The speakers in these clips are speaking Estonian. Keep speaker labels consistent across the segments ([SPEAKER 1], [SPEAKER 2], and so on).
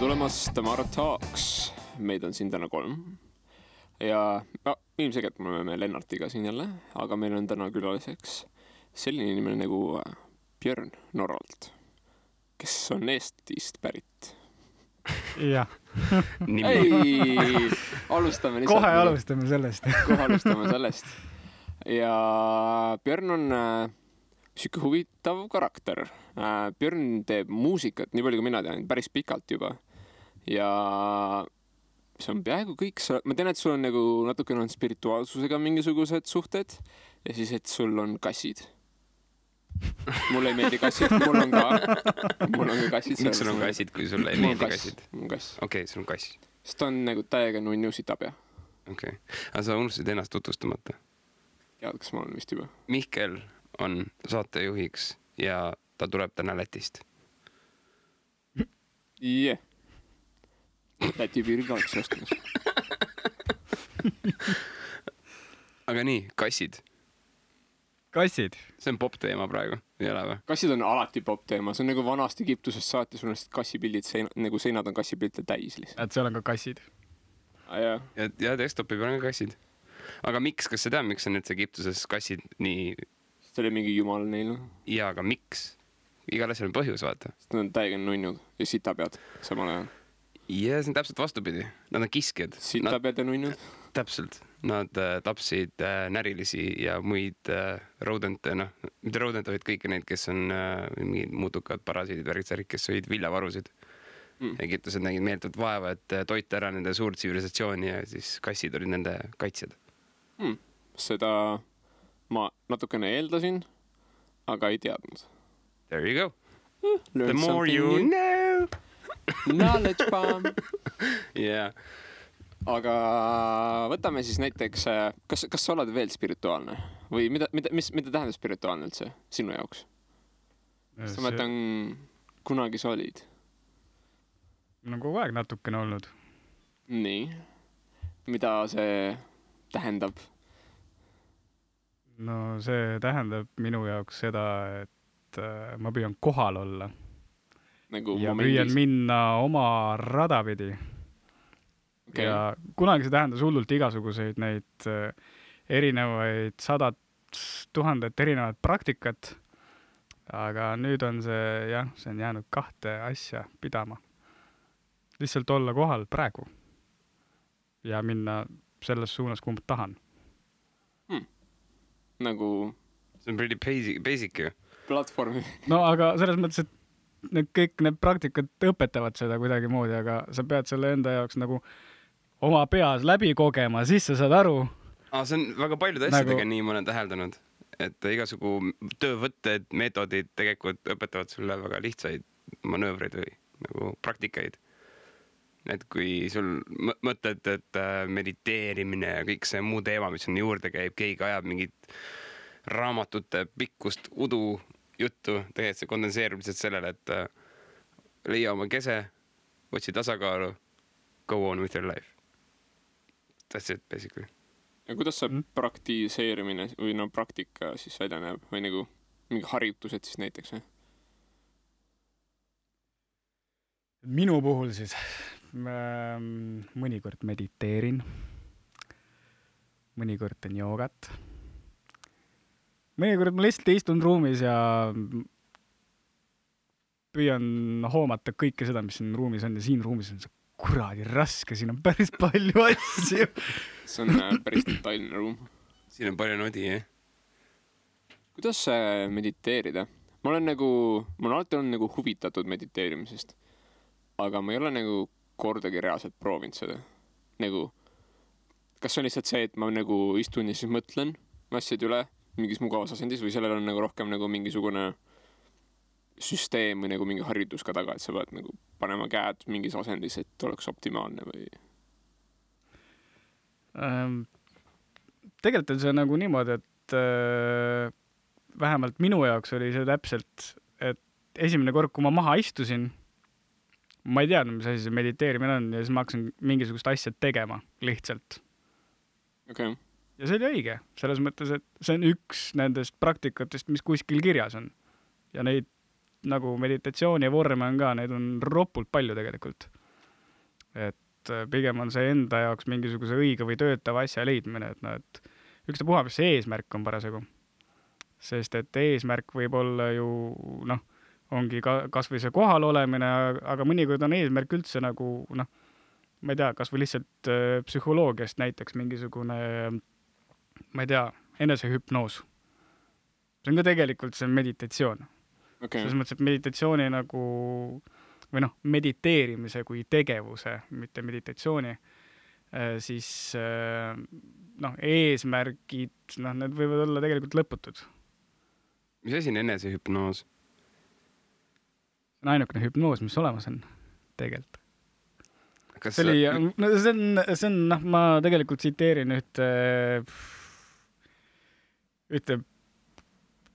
[SPEAKER 1] tulemast Tamara Talks. Meid on siin täna 3. Ja ilmselgelt me oleme Lennartiga siin jälle, aga meil on täna külaliseks selline inimene nagu Björn Norralt, kes on Eestist pärit.
[SPEAKER 2] Jah.
[SPEAKER 1] Ei, alustame
[SPEAKER 2] kohe alustame sellest.
[SPEAKER 1] Kohe alustame sellest. Ja Björn on siuke huvitav karakter. Björn teeb muusikat, nii palju kui mina tean, päris pikalt juba. Ja see on peaaegu kõik. Ma tean, et sul on nagu natukene on spirituaalsusega mingisugused suhted ja siis, et sul on kassid. Mulle ei meeldi kassid, mul on ka kassid.
[SPEAKER 3] Miks sul on kassid, kui sulle ei meeldi kassid?
[SPEAKER 1] Mul on kass.
[SPEAKER 3] Okei, sul on kass.
[SPEAKER 1] Sest ta on nagu täiega nunnu sitabja.
[SPEAKER 3] Okei. Aga sa unustasid ennast tutvustamata?
[SPEAKER 1] Tead, kas ma olen vist juba?
[SPEAKER 3] Mihkel on saatejuhiks ja ta tuleb täna Lätist.
[SPEAKER 1] Yeah. Läti piiril oleks ostumas.
[SPEAKER 3] Aga nii, kassid.
[SPEAKER 2] Kassid.
[SPEAKER 3] See on pop-teema praegu, ei ole või?
[SPEAKER 1] Kassid on alati pop-teema. See on nagu vanast Egiptusest saati, sul on kassipildid, nagu seinad on kassipildid täis lihtsalt.
[SPEAKER 2] Et seal on ka kassid.
[SPEAKER 3] Ja desktopi peal on ka kassid. Aga miks, kas sa tead, miks on üldse Egiptuses kassid nii...
[SPEAKER 1] See oli mingi jumal neil.
[SPEAKER 3] Ja, aga miks? Igal asjal on põhjus, vaata.
[SPEAKER 1] Sest nad on täiega nunnud ja sitapead samal ajal.
[SPEAKER 3] Ja see on täpselt vastupidi. Nad on kiskjad.
[SPEAKER 1] Sitapead ja nunnud?
[SPEAKER 3] Täpselt. Nad tapsid närilisi ja muid rodente, mitte rodente, vaid kõiki neid, kes on mingid muutukad parasiidid, värgitsärid, kes sõid viljavarusid. Egiptused nägid meeltult vaeva, et toita ära nende suurt tsivilisatsiooni ja siis kassid olid nende kaitsjad.
[SPEAKER 1] Seda ma natukene eeldasin, aga ei teadnud.
[SPEAKER 3] There you go.
[SPEAKER 1] Learn
[SPEAKER 3] The more you know.
[SPEAKER 1] Knowledge bomb.
[SPEAKER 3] Yeah.
[SPEAKER 1] Aga võtame siis näiteks, kas sa oled veel spirituaalne? Või mida tähendab spirituaalne üldse sinu jaoks? Sest ma mõtlen, kunagi sa olid?
[SPEAKER 2] No kogu aeg natukene olnud.
[SPEAKER 1] Nii. Mida see tähendab?
[SPEAKER 2] No see tähendab minu jaoks seda, et ma püüan kohal olla.
[SPEAKER 1] Nagu
[SPEAKER 2] ja
[SPEAKER 1] momendis.
[SPEAKER 2] püüan minna oma radapidi.
[SPEAKER 1] Okay.
[SPEAKER 2] Ja kunagi see tähendas hullult igasuguseid neid erinevaid 100 000 erinevat praktikat. Aga nüüd on see on jäänud 2 asja pidama. Lihtsalt olla kohal praegu ja minna selles suunas, kuhu ma tahan.
[SPEAKER 1] Nagu
[SPEAKER 3] see on pretty basic ju.
[SPEAKER 1] Platvormi.
[SPEAKER 2] No aga selles mõttes, et kõik need praktikad õpetavad seda kuidagi moodi, aga sa pead selle enda jaoks nagu oma peas läbi kogema, siis sa saad aru.
[SPEAKER 3] See on väga paljude asjadega nii ma olen täheldanud, et igasugu töövõtted, meetodid tegelikult õpetavad sulle väga lihtsaid manöövreid või nagu praktikaid. Et kui sul mõtled, et mediteerimine ja kõik see muu teema, mis on juurde käib, keegi ajab mingit raamatute pikkust udu juttu, tegelikult see kondenseerub lihtsalt sellele, et leia oma kese, otsi tasakaalu, go on with your life. That's it, basically.
[SPEAKER 1] Ja kuidas see praktiseerimine või praktika siis välja näeb või nagu mingi harjutused siis näiteks?
[SPEAKER 2] Minu puhul siis mõnikord mediteerin, mõnikord teen joogat, mõnikord ma lihtsalt istun ruumis ja püüan hoomata kõike seda, mis siin ruumis on ja siin ruumis on see kuradi raske, siin on päris palju asju.
[SPEAKER 1] See on päris detailne ruum.
[SPEAKER 3] Siin on palju nodi, jah?
[SPEAKER 1] Kuidas mediteerida? Ma olen alati olnud nagu huvitatud mediteerimisest, aga ma ei ole nagu kordagi reaalselt proovinud seda. Nagu, kas on lihtsalt see, et ma nagu istun ja siis mõtlen asjad üle mingis mugavas asendis või sellel on nagu rohkem nagu mingisugune süsteem või nagu mingi harjutus ka taga, et sa pead nagu panema käed mingis asendis, et oleks optimaalne või?
[SPEAKER 2] Tegelikult on see nagu niimoodi, et vähemalt minu jaoks oli see täpselt, et esimene kord, kui ma maha istusin, ma ei teadnud, mis asi see mediteerimine on ja siis ma hakkasin mingisugust asja tegema lihtsalt.
[SPEAKER 1] Okay.
[SPEAKER 2] Ja see oli õige, selles mõttes, et see on üks nendest praktikatest, mis kuskil kirjas on. Ja neid nagu meditatsiooni ja vorme on ka, neid on ropult palju tegelikult. et pigem on see enda jaoks mingisuguse õige või töötava asja leidmine, et noh, et ükstapuha, mis see eesmärk on parasjagu. Sest et eesmärk võib olla ju, noh, ongi kas või see kohal olemine, aga mõnikord on eesmärk üldse nagu, noh, ma ei tea, kas või lihtsalt psühholoogiast näiteks mingisugune, ma ei tea, enesehüpnoos. See on ka tegelikult see meditatsioon.
[SPEAKER 1] Okay.
[SPEAKER 2] Selles mõttes, et meditatsiooni nagu, või noh, mediteerimise kui tegevuse, mitte meditatsiooni, siis noh, eesmärgid, noh, need võivad olla tegelikult lõputud.
[SPEAKER 3] Mis asi on enesehüpnoos?
[SPEAKER 2] See on ainukene hüpnoos, mis olemas on tegelikult.
[SPEAKER 3] Kas
[SPEAKER 2] see on, noh, ma tegelikult tsiteerin ühte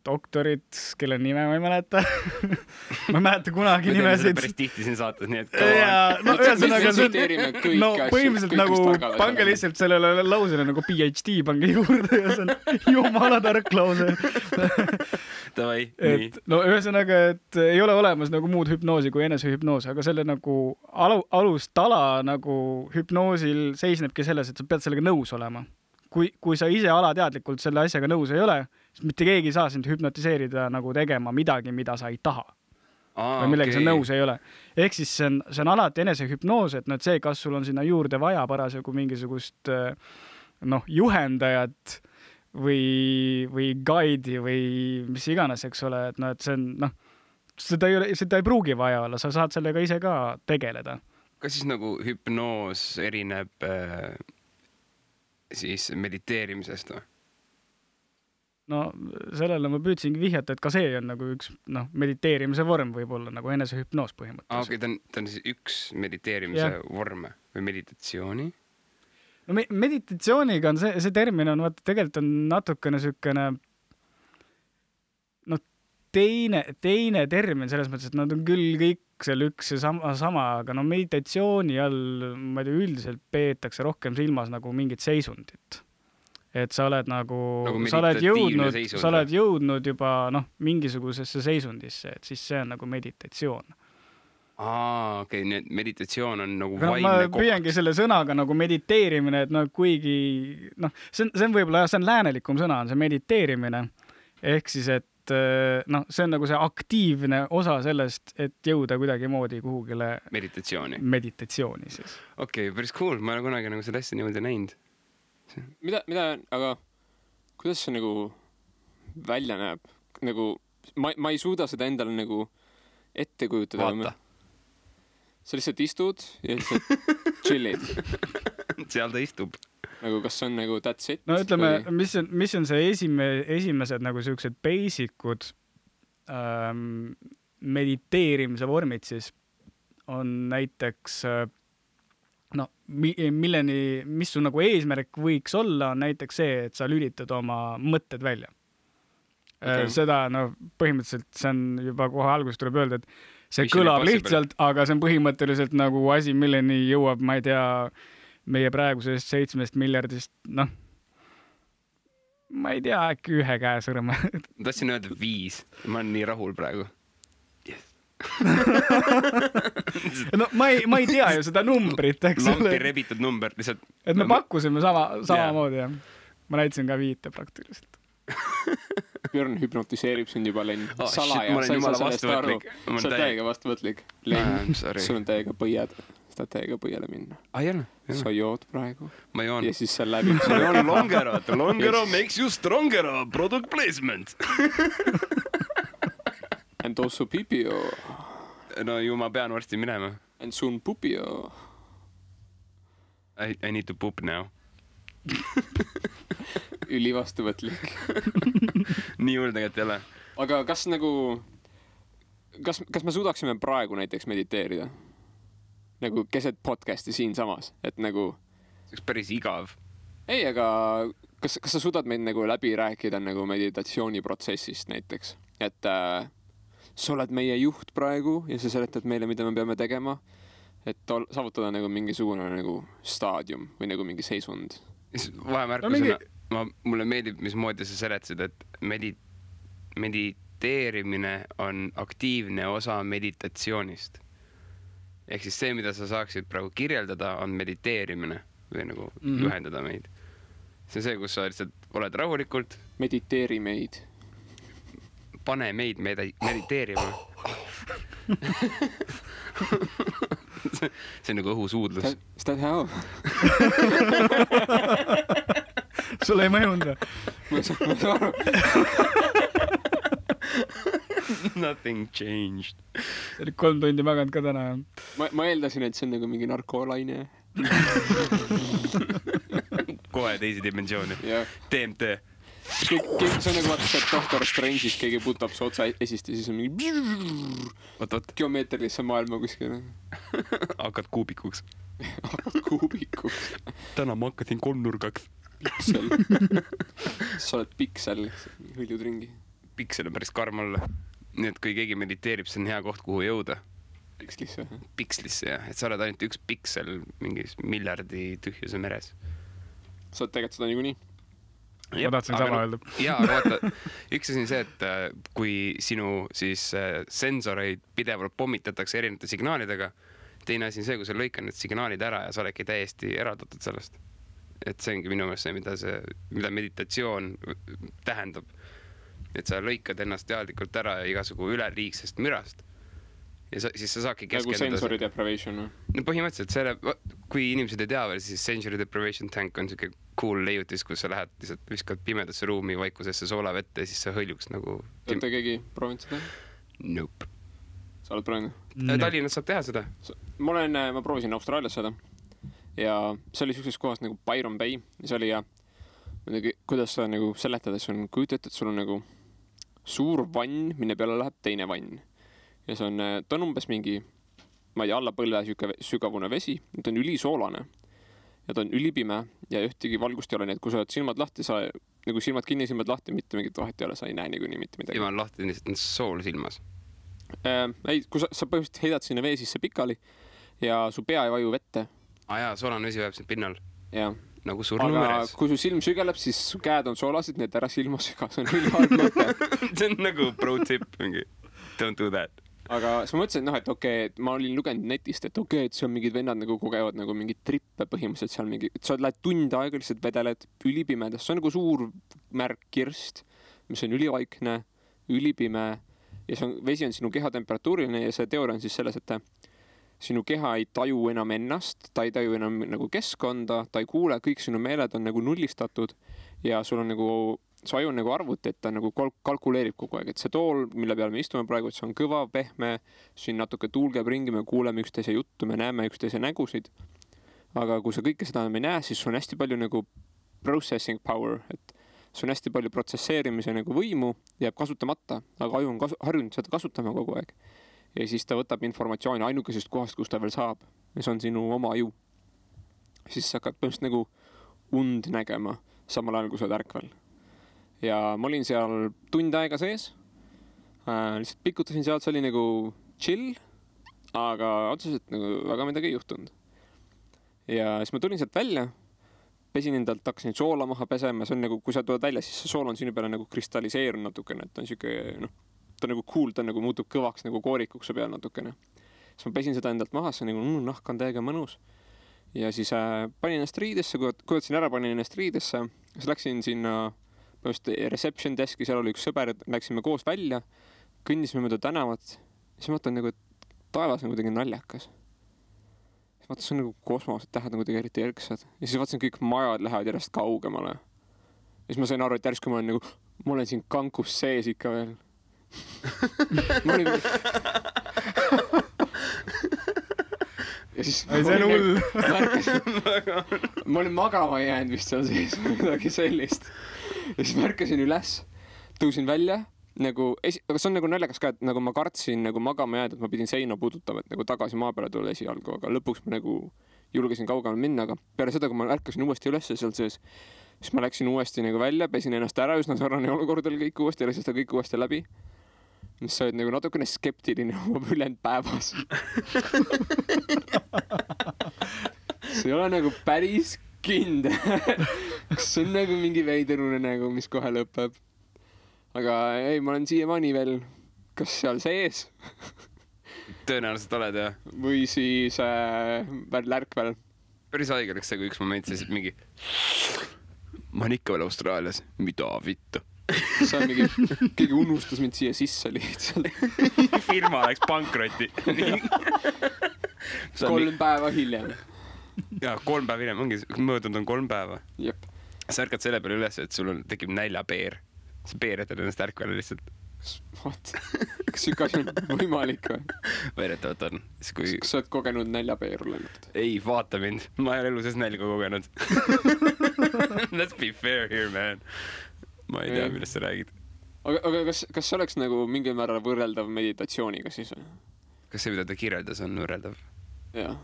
[SPEAKER 2] doktorit, kelle nime ma ei mäleta. Ma ei mäleta kunagi nimesid.
[SPEAKER 3] Päris tihti siin saates, nii et
[SPEAKER 2] no ühesõnaga no põhimõtteliselt nagu pange lihtsalt sellele lausele nagu PhD pange juurde ja see on jumala tark lause.
[SPEAKER 3] Davai, nii.
[SPEAKER 2] No ühesõnaga, et ei ole olemas nagu muud hüpnoosi kui enesehüpnoos, aga selle nagu alustala nagu hüpnoosil seisnebki selles, et sa pead sellega nõus olema. Kui sa ise alateadlikult selle asjaga nõus ei ole, siis mitte keegi ei saa sind hüpnotiseerida nagu tegema midagi, mida sa ei taha. Või millega sa nõus ei ole. Ehk siis see on alati enesehüpnoos, et see, kas sul on sinna juurde vaja parasjagu mingisugust noh, juhendajat või guide'i või mis iganes, eks ole, et, no, et see on, noh, seda ei pruugi vaja olla, sa saad sellega ise ka tegeleda.
[SPEAKER 3] Kas siis nagu hüpnoos erineb siis mediteerimisest või?
[SPEAKER 2] No sellele ma püüdsingi vihjata, et ka see on nagu üks mediteerimise vorm võib-olla nagu enesehüpnoos põhimõtteliselt.
[SPEAKER 3] Okei, ta on siis üks mediteerimise vorm või meditatsiooni?
[SPEAKER 2] No meditatsiooniga on see termin on, vaata, tegelikult on natukene sükene teine termin selles mõttes, et nad on küll kõik seal üks ja sama, aga meditatsiooni all, ma ei tea, üldiselt peetakse rohkem silmas nagu mingit seisundit. Et sa oled nagu sa oled jõudnud juba mingisugusesse seisundisse, et siis see on nagu meditatsioon.
[SPEAKER 3] Okei, nii et meditatsioon on nagu vaimne koht.
[SPEAKER 2] Ma püüangi selle sõnaga nagu mediteerimine, et kuigi see on võib-olla, see on läänelikum sõna, on see mediteerimine, ehk siis, et see on nagu see aktiivne osa sellest, et jõuda kuidagi moodi kuhugile meditatsiooni siis.
[SPEAKER 3] Okei, päris cool, ma olen kunagi nagu seda asja niimoodi näinud.
[SPEAKER 1] Mida, aga kuidas see nagu välja näeb? Nagu, ma ei suuda seda endale nagu ette kujutada.
[SPEAKER 3] Vaata.
[SPEAKER 1] Sa lihtsalt istud ja lihtsalt chillid.
[SPEAKER 3] Seal ta istub.
[SPEAKER 1] Nagu kas see on nagu that's it?
[SPEAKER 2] No ütleme, mis on see esimesed nagu sellised basicud mediteerimise vormid siis on näiteks mis su nagu eesmärk võiks olla, on näiteks see, et sa lülitad oma mõtted välja. Okay. Seda põhimõtteliselt see on juba kohe alguses tuleb öelda, et see kõlab lihtsalt, aga see on põhimõtteliselt nagu asi, milleni jõuab, ma ei tea, meie praegusest 7 miljardist, ma ei tea, äkki 1 käe sõrme.
[SPEAKER 3] Tahtsin öelda 5, ma olen nii rahul praegu. Yes.
[SPEAKER 2] ma ei tea ju seda numbrit, eks ole.
[SPEAKER 3] Lampi rebitud number, lihtsalt.
[SPEAKER 2] Et me pakkusime samamoodi, jah. Ma näitasin ka 5 praktiliselt.
[SPEAKER 1] Björn hüpnotiseerib sind juba, Len. Salaja, sa ei saa sellest aru. Sa oled täiega vastuvõtlik. Len, sul on täiega põied. Saad täiega põiele minna. Sa jood praegu.
[SPEAKER 3] Ma joon.
[SPEAKER 1] Ja siis see läbib.
[SPEAKER 3] Ma joon Longero. Longero makes you strongero. Product placement.
[SPEAKER 1] And also pipio.
[SPEAKER 3] No ju ma pean varsti minema.
[SPEAKER 1] And soon pupio.
[SPEAKER 3] I need to poop now.
[SPEAKER 1] Üli vastuvõtlik.
[SPEAKER 3] Nii juurde tegelikult ei ole.
[SPEAKER 1] Aga kas nagu kas me suudaksime praegu näiteks mediteerida? Nagu keset podcasti siin samas, et nagu
[SPEAKER 3] see oleks päris igav.
[SPEAKER 1] Ei, aga kas sa suudad meid nagu läbi rääkida nagu meditatsiooniprotsessist näiteks, et sa oled meie juht praegu ja sa seletad meile, mida me peame tegema, et saavutada nagu mingisugune nagu staadium või nagu mingi seisund.
[SPEAKER 3] Vahemärkusena mulle meeldib, mismoodi sa seletasid, et mediteerimine on aktiivne osa meditatsioonist. ehk siis see, mida sa saaksid praegu kirjeldada, on mediteerimine või nagu juhendada meid. See on see, kus sa lihtsalt oled rahulikult.
[SPEAKER 1] Mediteeri meid.
[SPEAKER 3] Pane meid mediteerima. See on nagu õhusuudlus.
[SPEAKER 1] Is that how?
[SPEAKER 2] Sulle ei mõjunud?
[SPEAKER 1] Ma saan aru.
[SPEAKER 3] Nothing changed.
[SPEAKER 2] See oli 3 tundi maganud ka täna.
[SPEAKER 1] Ma eeldasin, et see on nagu mingi narkoolaine.
[SPEAKER 3] Kohe teisi dimensiooni. DMT.
[SPEAKER 1] See on nagu vaata see Doctor Strange'is keegi putab su otsa esist ja siis on mingi geomeetrilisse maailma kuskil.
[SPEAKER 3] Hakkad kuubikuks.
[SPEAKER 1] Hakkad kuubikuks.
[SPEAKER 3] Täna ma hakkasin 3-nurgaks.
[SPEAKER 1] Piksel. Sa oled piksel, hõljud ringi.
[SPEAKER 3] Piksel on päris karm olla. Nii et kui keegi mediteerib, see on hea koht, kuhu jõuda.
[SPEAKER 1] Pikslisse.
[SPEAKER 3] Pikslisse, jah. Et sa oled ainult üks piksel mingis miljardi tühjuse meres.
[SPEAKER 1] Sa oled tegelikult seda niikuinii.
[SPEAKER 2] Ma tahtsin sama öelda.
[SPEAKER 3] Jaa, aga vaata, üks asi on see, et kui sinu siis sensoreid pidevalt pommitatakse erinevate signaalidega, teine asi on see, kui sa lõikad need signaalid ära ja sa oledki täiesti eraldatud sellest. Et see ongi minu meelest see, mida meditatsioon tähendab. Et sa lõikad ennast teadlikult ära igasugu üleliigsest mürast. Ja siis sa saadki keskenduda.
[SPEAKER 1] Nagu sensory deprivation.
[SPEAKER 3] No põhimõtteliselt kui inimesed ei tea veel, siis sensory deprivation tank on selline cool leiutis, kus sa lähed lihtsalt viskad pimedasse ruumi vaikusesse soolavette ja siis sa hõljuks nagu...
[SPEAKER 1] Olete keegi proovinud seda?
[SPEAKER 3] Nope.
[SPEAKER 1] Sa oled proovinud?
[SPEAKER 3] Tallinnas saab teha seda.
[SPEAKER 1] Ma proovisin Austraalias seda ja see oli sellises kohas nagu Byron Bay ja see oli kuidas sa nagu seletades on kujutat, et sul on nagu suur vann, minne peale läheb teine vann. Ja see on, ta on umbes mingi, ma ei tea, alla põlve sügavune vesi, ta on ülisoolane ja ta on ülipime ja ühtegi valgust ei ole, nii et kui sa oled silmad lahti, sa nagu silmad kinni, silmad lahti, mitte mingit vahet ei ole, sa ei näe nii mitte midagi.
[SPEAKER 3] Silmad lahti, lihtsalt on sool silmas.
[SPEAKER 1] Ei, kui sa põhimõtteliselt heidad sinna vee sisse pikali ja su pea ei vaju vette.
[SPEAKER 3] Jaa, soolane vesi vajab siin pinnal.
[SPEAKER 1] Ja.
[SPEAKER 3] Nagu surnu meres.
[SPEAKER 1] Aga kui su silm sügeleb, siis su käed on soolased, need ära silma süga, see on ülihalb mõte.
[SPEAKER 3] See on nagu pro tip mingi. Don't do that.
[SPEAKER 1] Aga siis ma mõtlesin, et okei, et ma olin lugenud netist, et okei, et see on mingid vennad nagu kogevad nagu mingid trippe põhimõtteliselt seal mingi, et sa lähed tund aega lihtsalt vedeled ülipimedas, see on nagu suur märk kirst, mis on ülivaikne, ülipime ja vesi on sinu keha temperatuuriline ja see teooria on siis selles, et sinu keha ei taju enam ennast, ta ei taju enam nagu keskkonda, ta ei kuule, kõik sinu meeled on nagu nullistatud ja sul on nagu su aju on nagu arvuti, et ta nagu kalkuleerib kogu aeg, et see tool, mille peal me istume praegu, et see on kõva, pehme, siin natuke tuul käib ringi, me kuuleme üksteise juttu, me näeme üksteise nägusid. Aga kui sa kõike seda me ei näe, siis on hästi palju nagu processing power, et see on hästi palju protsesseerimise nagu võimu, jääb kasutamata, aga aju on harjunud seda kasutama kogu aeg. Ja siis ta võtab informatsiooni ainukesest kohast, kus ta veel saab. Ja see on sinu oma aju. Siis sa hakkad põhimõtteliselt nagu und nägema, samal ajal kui sa oled ärkvel. Ja ma olin seal tund aega sees, lihtsalt pikutasin sealt, see oli nagu chill, aga otseselt nagu väga midagi ei juhtunud. Ja siis ma tulin sealt välja, pesin endalt, hakkasin soola maha pesema, see on nagu, kui sa tuled välja, siis see sool on sinu peale nagu kristalliseerunud natukene, et ta on siuke, ta on nagu cool, ta nagu muutub kõvaks nagu koorikuks peal natukene. Siis ma pesin seda endalt maha, see on nagu nahk on täiega mõnus. Ja siis panin ennast riidesse, kujutasin ära, panin ennast riidesse, siis läksin sinna reception deski, seal oli üks sõber, läksime koos välja, kõndisime mööda tänavat, siis mõtlen nagu, et taevas on kuidagi naljakas. Siis mõtlen, see on nagu kosmos, et tähed on kuidagi eriti erksad. Ja siis vaatasin, kõik majad lähevad järjest kaugemale. Ja siis ma sain aru, et järsku ma olen siin kankus sees ikka veel. Ma olin... Ja siis
[SPEAKER 2] see on hull.
[SPEAKER 1] Ma olin magama jäänud vist seal sees, midagi sellist. Ja siis märkasin üles, tõusin välja, nagu, aga see on nagu naljakas ka, et nagu ma kartsin nagu magama jääd, et ma pidin seina puudutama, et nagu tagasi maa peale tulla esialgu, aga lõpuks ma nagu julgesin kaugemale minna, aga peale seda, kui ma ärkasin uuesti üles seal sees, siis ma läksin uuesti nagu välja, pesin ennast ära, üsna sarnane olukord oli kõik uuesti, läksin seda kõik uuesti läbi. Mis sa oled nagu natukene skeptiline oma ülend päevas. See ei ole nagu päris kindel. Kas see on nagu mingi veiderune nagu, mis kohe lõpeb. Aga ei, ma olen siiamaani veel kas seal sees
[SPEAKER 3] tõenäoliselt oled jah.
[SPEAKER 1] või siis lärkvel.
[SPEAKER 3] Päris haige oleks see, kui üks moment siis mingi ma olen ikka veel Austraalias, mida vittu.
[SPEAKER 1] See on mingi, keegi unustas mind siia sisse lihtsalt.
[SPEAKER 3] Firma läks pankrotti.
[SPEAKER 1] 3 päeva hiljem.
[SPEAKER 3] Jaa, 3 päeva hiljem, ongi möödunud on 3 päeva.
[SPEAKER 1] Jep.
[SPEAKER 3] Sa ärkad selle peale üles, et sul tekib näljapeer. Sa peeretad ennast ärkvale lihtsalt.
[SPEAKER 1] What? Kas siuke asi on võimalik või?
[SPEAKER 3] Väidetavalt on.
[SPEAKER 1] Kas sa oled kogenud näljapeeru läinud?
[SPEAKER 3] Ei, vaata mind. Ma ei ole elu sees nälga kogenud. Let's be fair here, man. Ma ei tea, millest sa räägid.
[SPEAKER 1] Aga kas see oleks nagu mingil määral võrreldav meditatsiooniga siis või?
[SPEAKER 3] Kas see, mida ta kirjeldas, on võrreldav?
[SPEAKER 1] Jaa.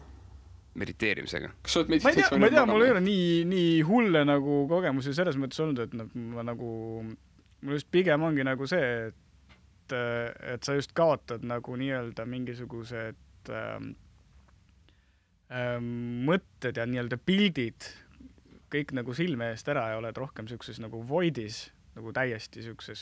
[SPEAKER 3] Mediteerimisega?
[SPEAKER 1] Kas sa oled
[SPEAKER 2] ma
[SPEAKER 1] meditatsiooni
[SPEAKER 2] ei tea, mul ei ole nii hulle nagu kogemusi selles mõttes olnud, et ma nagu, mul just pigem ongi nagu see, et sa just kaotad nagu nii-öelda mingisugused mõtted ja nii-öelda pildid kõik nagu silme eest ära ja oled rohkem siukses nagu voidis, nagu täiesti siukses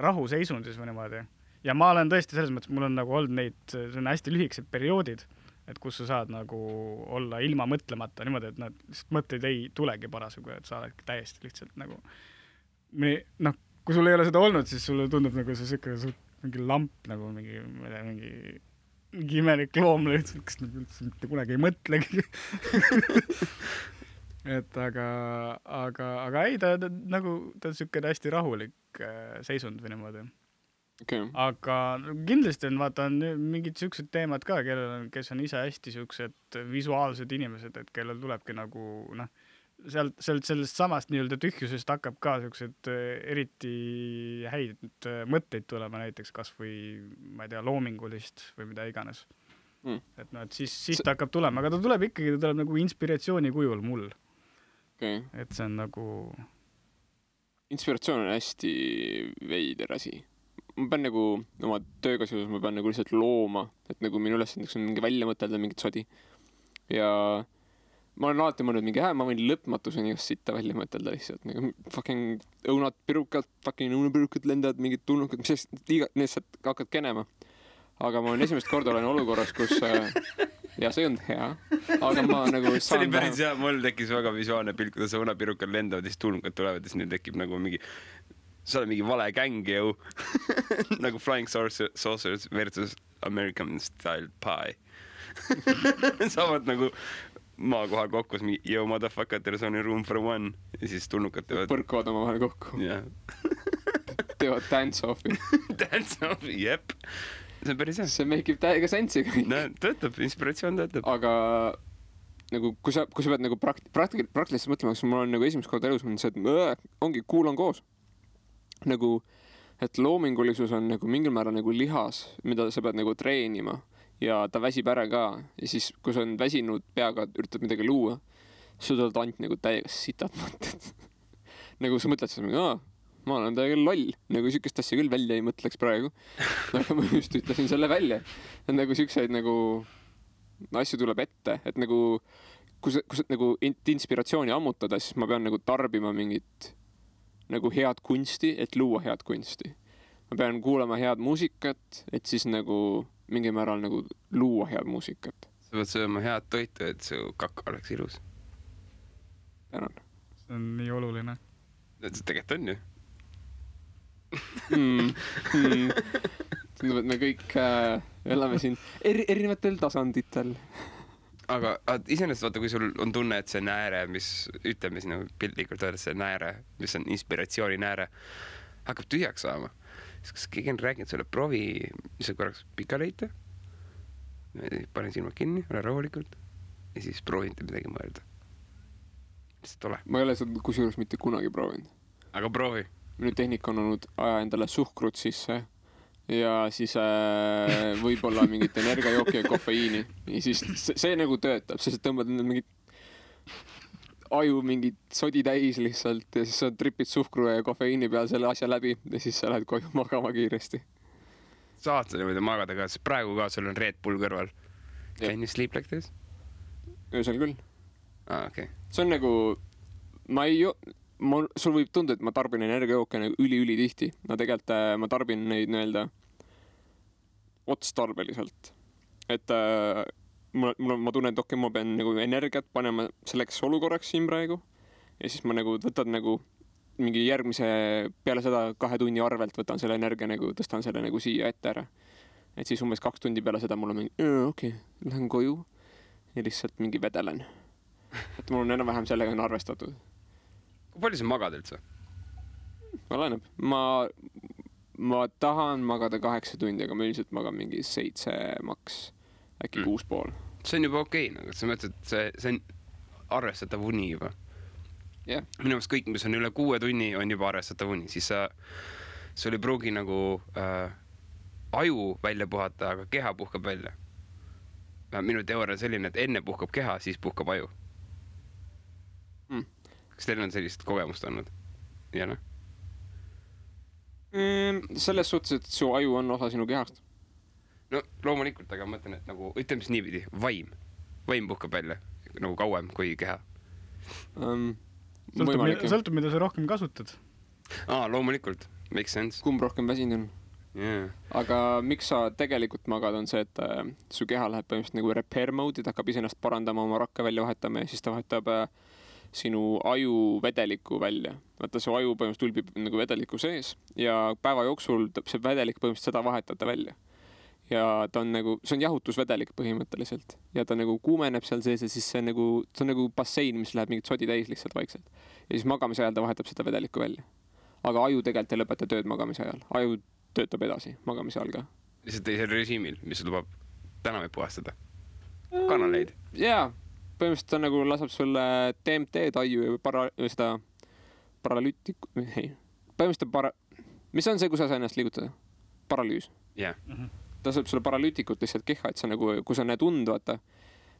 [SPEAKER 2] rahuseisundis või niimoodi. Ja ma olen tõesti selles mõttes, mul on nagu olnud neid, see on hästi lühikesed perioodid, et kus sa saad nagu olla ilma mõtlemata niimoodi, et nad lihtsalt mõtteid ei tulegi parasjagu, et sa oled täiesti lihtsalt nagu noh, kui sul ei ole seda olnud, siis sulle tundub nagu see siuke mingi lamp nagu mingi imelik loom lihtsalt, kes üldse mitte kunagi ei mõtlegi. Et aga ei, ta nagu ta on siuke hästi rahulik seisund või niimoodi.
[SPEAKER 1] Okay.
[SPEAKER 2] Aga kindlasti on, vaata, on mingid siuksed teemad ka, kes on ise hästi siuksed visuaalsed inimesed, et kellel tulebki nagu, noh, sellest samast nii-öelda tühjusest hakkab ka siuksed eriti häid mõtteid tulema, näiteks kas või, ma ei tea, loomingulist või mida iganes. Et no, et siis ta hakkab tulema, aga ta tuleb nagu inspiratsiooni kujul mul.
[SPEAKER 1] Okay.
[SPEAKER 2] Et see on nagu...
[SPEAKER 1] Inspiratsioon on hästi veider asi. Ma pean nagu oma tööga seoses, ma pean nagu lihtsalt looma, et nagu minu ülesandeks on mingi välja mõtelda mingit sodi. Ja ma olen alati mõelnud mingi, ma võin lõpmatuseni just sitta välja mõtelda lihtsalt. Nagu fucking õunapirukad lendavad, mingid tulnukad, mis lihtsalt hakkad kenema. Aga ma esimest korda olen olukorras, kus ja see on hea, aga ma nagu
[SPEAKER 3] see oli päris hea, mul tekkis väga visuaalne pilt, kuidas õunapirukad lendavad ja siis tulnukad tulevad ja siis neil tekib nagu mingi sa oled mingi vale gäng jõu. Nagu Flying Saucers versus American Style Pie. Saavad nagu maa kohal kokku, yo motherfucker, there's only room for one. Ja siis tulnukad teevad...
[SPEAKER 1] Põrkuvad oma vahel kokku.
[SPEAKER 3] Yeah.
[SPEAKER 1] Teevad dance-offi.
[SPEAKER 3] Dance-offi, jep. See on päris hea.
[SPEAKER 1] See make ib täiega sensi kõik.
[SPEAKER 3] No, töötab, inspiratsioon töötab.
[SPEAKER 1] Aga nagu, kui sa pead nagu praktiliselt mõtlema, siis mul on nagu esimest korda elus on see, et ongi kuulan koos. Nagu, et loomingulisus on nagu mingil määral nagu lihas, mida sa pead nagu treenima ja ta väsib ära ka. Ja siis, kui sa on väsinud peaga, üritad midagi luua, siis sa tuled ainult nagu täiega sitad mõtted. Nagu sa mõtled seda, ma olen täiega loll, nagu sükest asja küll välja ei mõtleks praegu. Aga ma just ütlesin selle välja. Et nagu sükseid nagu asju tuleb ette, et nagu kui sa nagu inspiratsiooni ammutada, siis ma pean nagu tarbima mingit nagu head kunsti, et luua head kunsti. Ma pean kuulama head muusikat, et siis nagu mingi määral nagu luua head muusikat.
[SPEAKER 3] Sa pead sööma head toitu, et su kaka oleks ilus.
[SPEAKER 1] Tänan.
[SPEAKER 2] See on nii oluline.
[SPEAKER 3] Tegelikult on ju.
[SPEAKER 1] Tundub, et me kõik elame siin erinevatel tasanditel.
[SPEAKER 3] Aga iseenesest vaata, kui sul on tunne, et see nääre, mis ütleme siin piltlikult öelda, see nääre, mis on inspiratsiooni nääre, hakkab tühjaks saama. Siis kas keegi on rääkinud selle provi, mis sa korraks pika leita, panen silmad kinni, ole rahulikult ja siis proovinte midagi mõelda. Lihtsalt ole.
[SPEAKER 1] Ma ei ole seda kusjuures mitte kunagi proovinud.
[SPEAKER 3] Aga proovi.
[SPEAKER 1] Minu tehnika on olnud aja endale suhkrut sisse ja siis võib-olla mingit energiajooki ja kofeiini. Ja siis see nagu töötab, sest tõmbad mingit aju mingit sodi täis lihtsalt ja siis sa tripid suhkru ja kofeiini peal selle asja läbi ja siis sa lähed koju magama kiiresti.
[SPEAKER 3] Saad sa niimoodi magada ka, sest praegu ka sul on Red Bull kõrval. Can you sleep like this?
[SPEAKER 1] Öösel küll.
[SPEAKER 3] Okay.
[SPEAKER 1] See on nagu, sul võib tunda, et ma tarbin energiajooke nagu üli tihti. No tegelikult ma tarbin neid nii-öelda otstarbeliselt. Et ma tunnen, et okei, ma pean nagu energiat panema selleks olukorraks siin praegu ja siis ma nagu võtan nagu mingi järgmise peale seda 2 tunni arvelt võtan selle energia nagu, tõstan selle nagu siia ette ära. Et siis umbes 2 tundi peale seda mul on mingi, okei, lähen koju ja lihtsalt mingi vedelen. Et mul on enam-vähem sellega on arvestatud.
[SPEAKER 3] Kui palju sa magad üldse?
[SPEAKER 1] Oleneb. Ma tahan magada 8 tundi, aga ma üldiselt magan mingi 7 maks, äkki 6,5.
[SPEAKER 3] See on juba okei, nagu sa mõtled, et see on arvestatav uni juba.
[SPEAKER 1] Yeah.
[SPEAKER 3] Minu meelest kõik, mis on üle 6 tunni, on juba arvestatav uni. Siis sul ei pruugi nagu aju välja puhata, aga keha puhkab välja. Minu teooria on selline, et enne puhkab keha, siis puhkab aju. Kas teil on sellist kogemust olnud? Ja noh?
[SPEAKER 1] Selles suhtes, et su aju on osa sinu kehast.
[SPEAKER 3] No loomulikult, aga ma mõtlen, et nagu, ütleme siis niipidi, vaim puhkab välja nagu kauem kui keha.
[SPEAKER 2] Sõltub, mida sa rohkem kasutad.
[SPEAKER 3] Loomulikult, makes sense.
[SPEAKER 1] Kumb rohkem väsinud on?
[SPEAKER 3] Yeah.
[SPEAKER 1] Aga miks sa tegelikult magad, on see, et su keha läheb põhimõtteliselt nagu repair mode, et hakkab iseennast parandama, oma rakke välja vahetama ja siis ta vahetab sinu aju vedeliku välja. Vaata, su aju põhimõtteliselt ulbib nagu vedeliku sees ja päeva jooksul see vedelik põhimõtteliselt seda vahetada välja. Ja ta on nagu, see on jahutusvedelik põhimõtteliselt ja ta nagu kuumeneb seal sees ja siis see on nagu bassein, mis läheb mingit sodi täis lihtsalt vaikselt. Ja siis magamise ajal ta vahetab seda vedelikku välja. Aga aju tegelikult ei lõpeta tööd magamise ajal. Aju töötab edasi magamise ajal ka.
[SPEAKER 3] Lihtsalt teisel režiimil, mis lubab tänavaid puhastada. Kanaleid.
[SPEAKER 1] Jaa, põhimõtteliselt ta nagu laseb sulle DMT-d aju ja seda paralüütiku, mis on see, kus sa ennast liigutada? Paralüüs.
[SPEAKER 3] Jah.
[SPEAKER 1] Ta saab sulle paralüütikut lihtsalt keha, et sa nagu, kui sa näed und, vaata,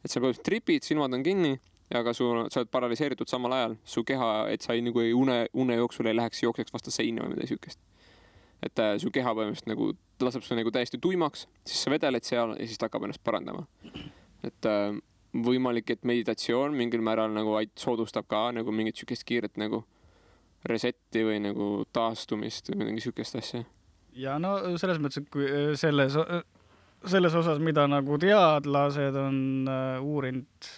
[SPEAKER 1] et sa põhimõtteliselt tripid, silmad on kinni, aga sa oled paraliseeritud samal ajal. Su keha, et sa nagu une jooksul ei läheks jookseks vastu seina või midagi sükest. Et su keha põhimõtteliselt nagu laseb sulle nagu täiesti tuimaks, siis sa vedeled seal ja siis ta hakkab ennast parandama. Et võimalik, et meditatsioon mingil määral nagu soodustab ka nagu mingit sükest kiiret nagu resetti või nagu taastumist või mingi sükest asja.
[SPEAKER 2] Ja no selles mõttes, et kui selles osas, mida nagu teadlased on uurinud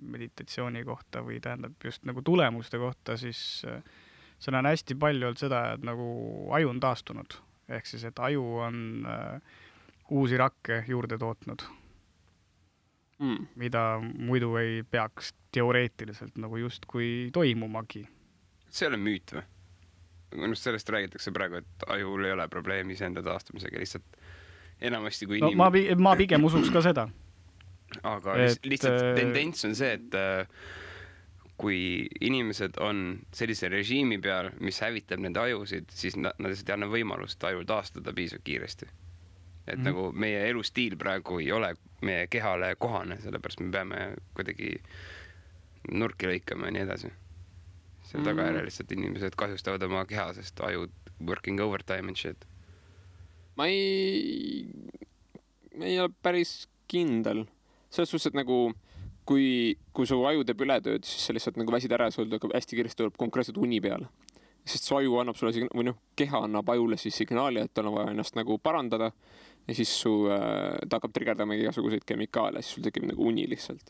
[SPEAKER 2] meditatsiooni kohta või tähendab just nagu tulemuste kohta, siis seal on hästi palju olnud seda, et nagu aju on taastunud. Ehk siis, et aju on uusi rakke juurde tootnud, mida muidu ei peaks teoreetiliselt nagu just kui toimumagi.
[SPEAKER 3] See ei ole müüt või? Minust sellest räägitakse praegu, et ajul ei ole probleemi iseenda taastumisega, lihtsalt enamasti kui inimene...
[SPEAKER 2] No, ma pigem usuks ka seda.
[SPEAKER 3] Aga lihtsalt tendents on see, et kui inimesed on sellise režiimi peal, mis hävitab nende ajusid, siis nad lihtsalt ei anna võimalust ajul taastada piisavalt kiiresti. Et nagu meie elustiil praegu ei ole meie kehale kohane, sellepärast me peame kuidagi nurki lõikama ja nii edasi. Selle tagajärjel lihtsalt inimesed kahjustavad oma keha, sest ajud working overtime and shit.
[SPEAKER 1] Ma ei ole päris kindel. Selles suhtes, et nagu kui su aju teeb ületööd, siis sa lihtsalt nagu väsid ära ja sul hästi kiiresti tuleb konkreetselt uni peale. Sest su aju annab sulle või keha annab ajule siis signaali, et tal on vaja ennast nagu parandada ja siis ta hakkab triggerdama igasuguseid kemikaale, siis sul tekib nagu uni lihtsalt.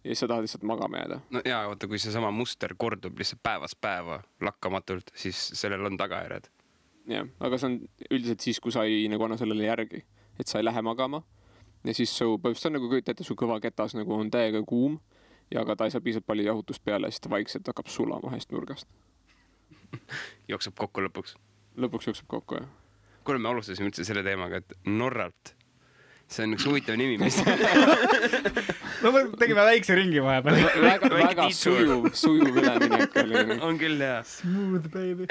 [SPEAKER 1] Ja sa tahad lihtsalt magama jääda.
[SPEAKER 3] No jaa, oota, kui see sama muster kordub lihtsalt päevast päeva lakkamatult, siis sellel on tagajärjed.
[SPEAKER 1] Jah, aga see on üldiselt siis, kui sa ei nagu anna sellele järgi, et sa ei lähe magama. Ja siis su põhimõtteliselt on nagu kõitate, su kõva ketas nagu on täiega kuum ja aga ta ei saa piisavalt palju jahutust peale ja siis ta vaikselt hakkab sulama ühest nurgast.
[SPEAKER 3] Jookseb kokku lõpuks.
[SPEAKER 1] Lõpuks jookseb kokku, jah.
[SPEAKER 3] Kuule, me alustasime üldse selle teemaga, et Norralt. See on üks huvitav nimi, mis...
[SPEAKER 2] No me tegime väikse ringi vahepeal.
[SPEAKER 1] Väga sujuv üleminek oli.
[SPEAKER 3] On küll, jaa.
[SPEAKER 2] Smooth, baby.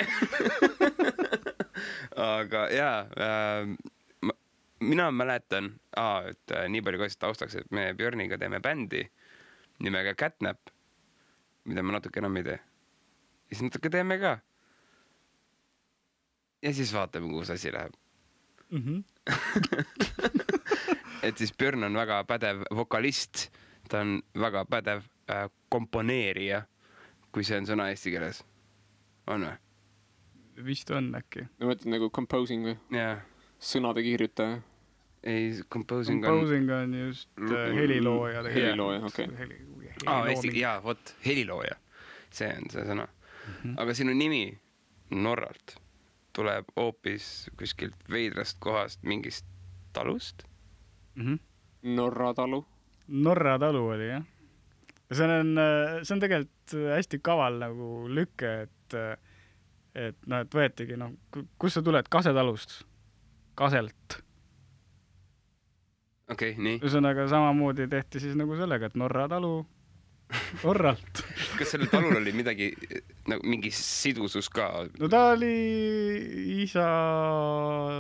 [SPEAKER 3] Aga jaa, mina mäletan, et nii palju kaasist taustaks, et me Björniga teeme bändi nimega Catnap, mida me natuke enam ei tee. Ja siis natuke teeme ka. Ja siis vaatame, kuhu asi läheb. Et siis Björn on väga pädev vokalist, ta on väga pädev komponeerija, kui see on sõna eesti keeles. On või?
[SPEAKER 2] Vist on äkki.
[SPEAKER 1] Ma mõtlen nagu composing või?
[SPEAKER 3] Jaa.
[SPEAKER 1] Sõnade kirjutaja.
[SPEAKER 3] ei, composing
[SPEAKER 2] on just helilooja.
[SPEAKER 1] Helilooja, okei.
[SPEAKER 3] Jaa, vot, helilooja. See on see sõna. Aga sinu nimi Norralt tuleb hoopis kuskilt veidrast kohast mingist talust?
[SPEAKER 1] Norra talu.
[SPEAKER 2] Norra talu oli, jah. Ja see on tegelikult hästi kaval nagu lükke, et võetigi, kus sa tuled? Kasetalust? Kaselt.
[SPEAKER 3] Okei, nii.
[SPEAKER 2] Ühesõnaga samamoodi tehti siis nagu sellega, et Norra talu Norralt.
[SPEAKER 3] Kas sellel talul oli midagi, nagu mingi sidusus ka?
[SPEAKER 2] No ta oli isa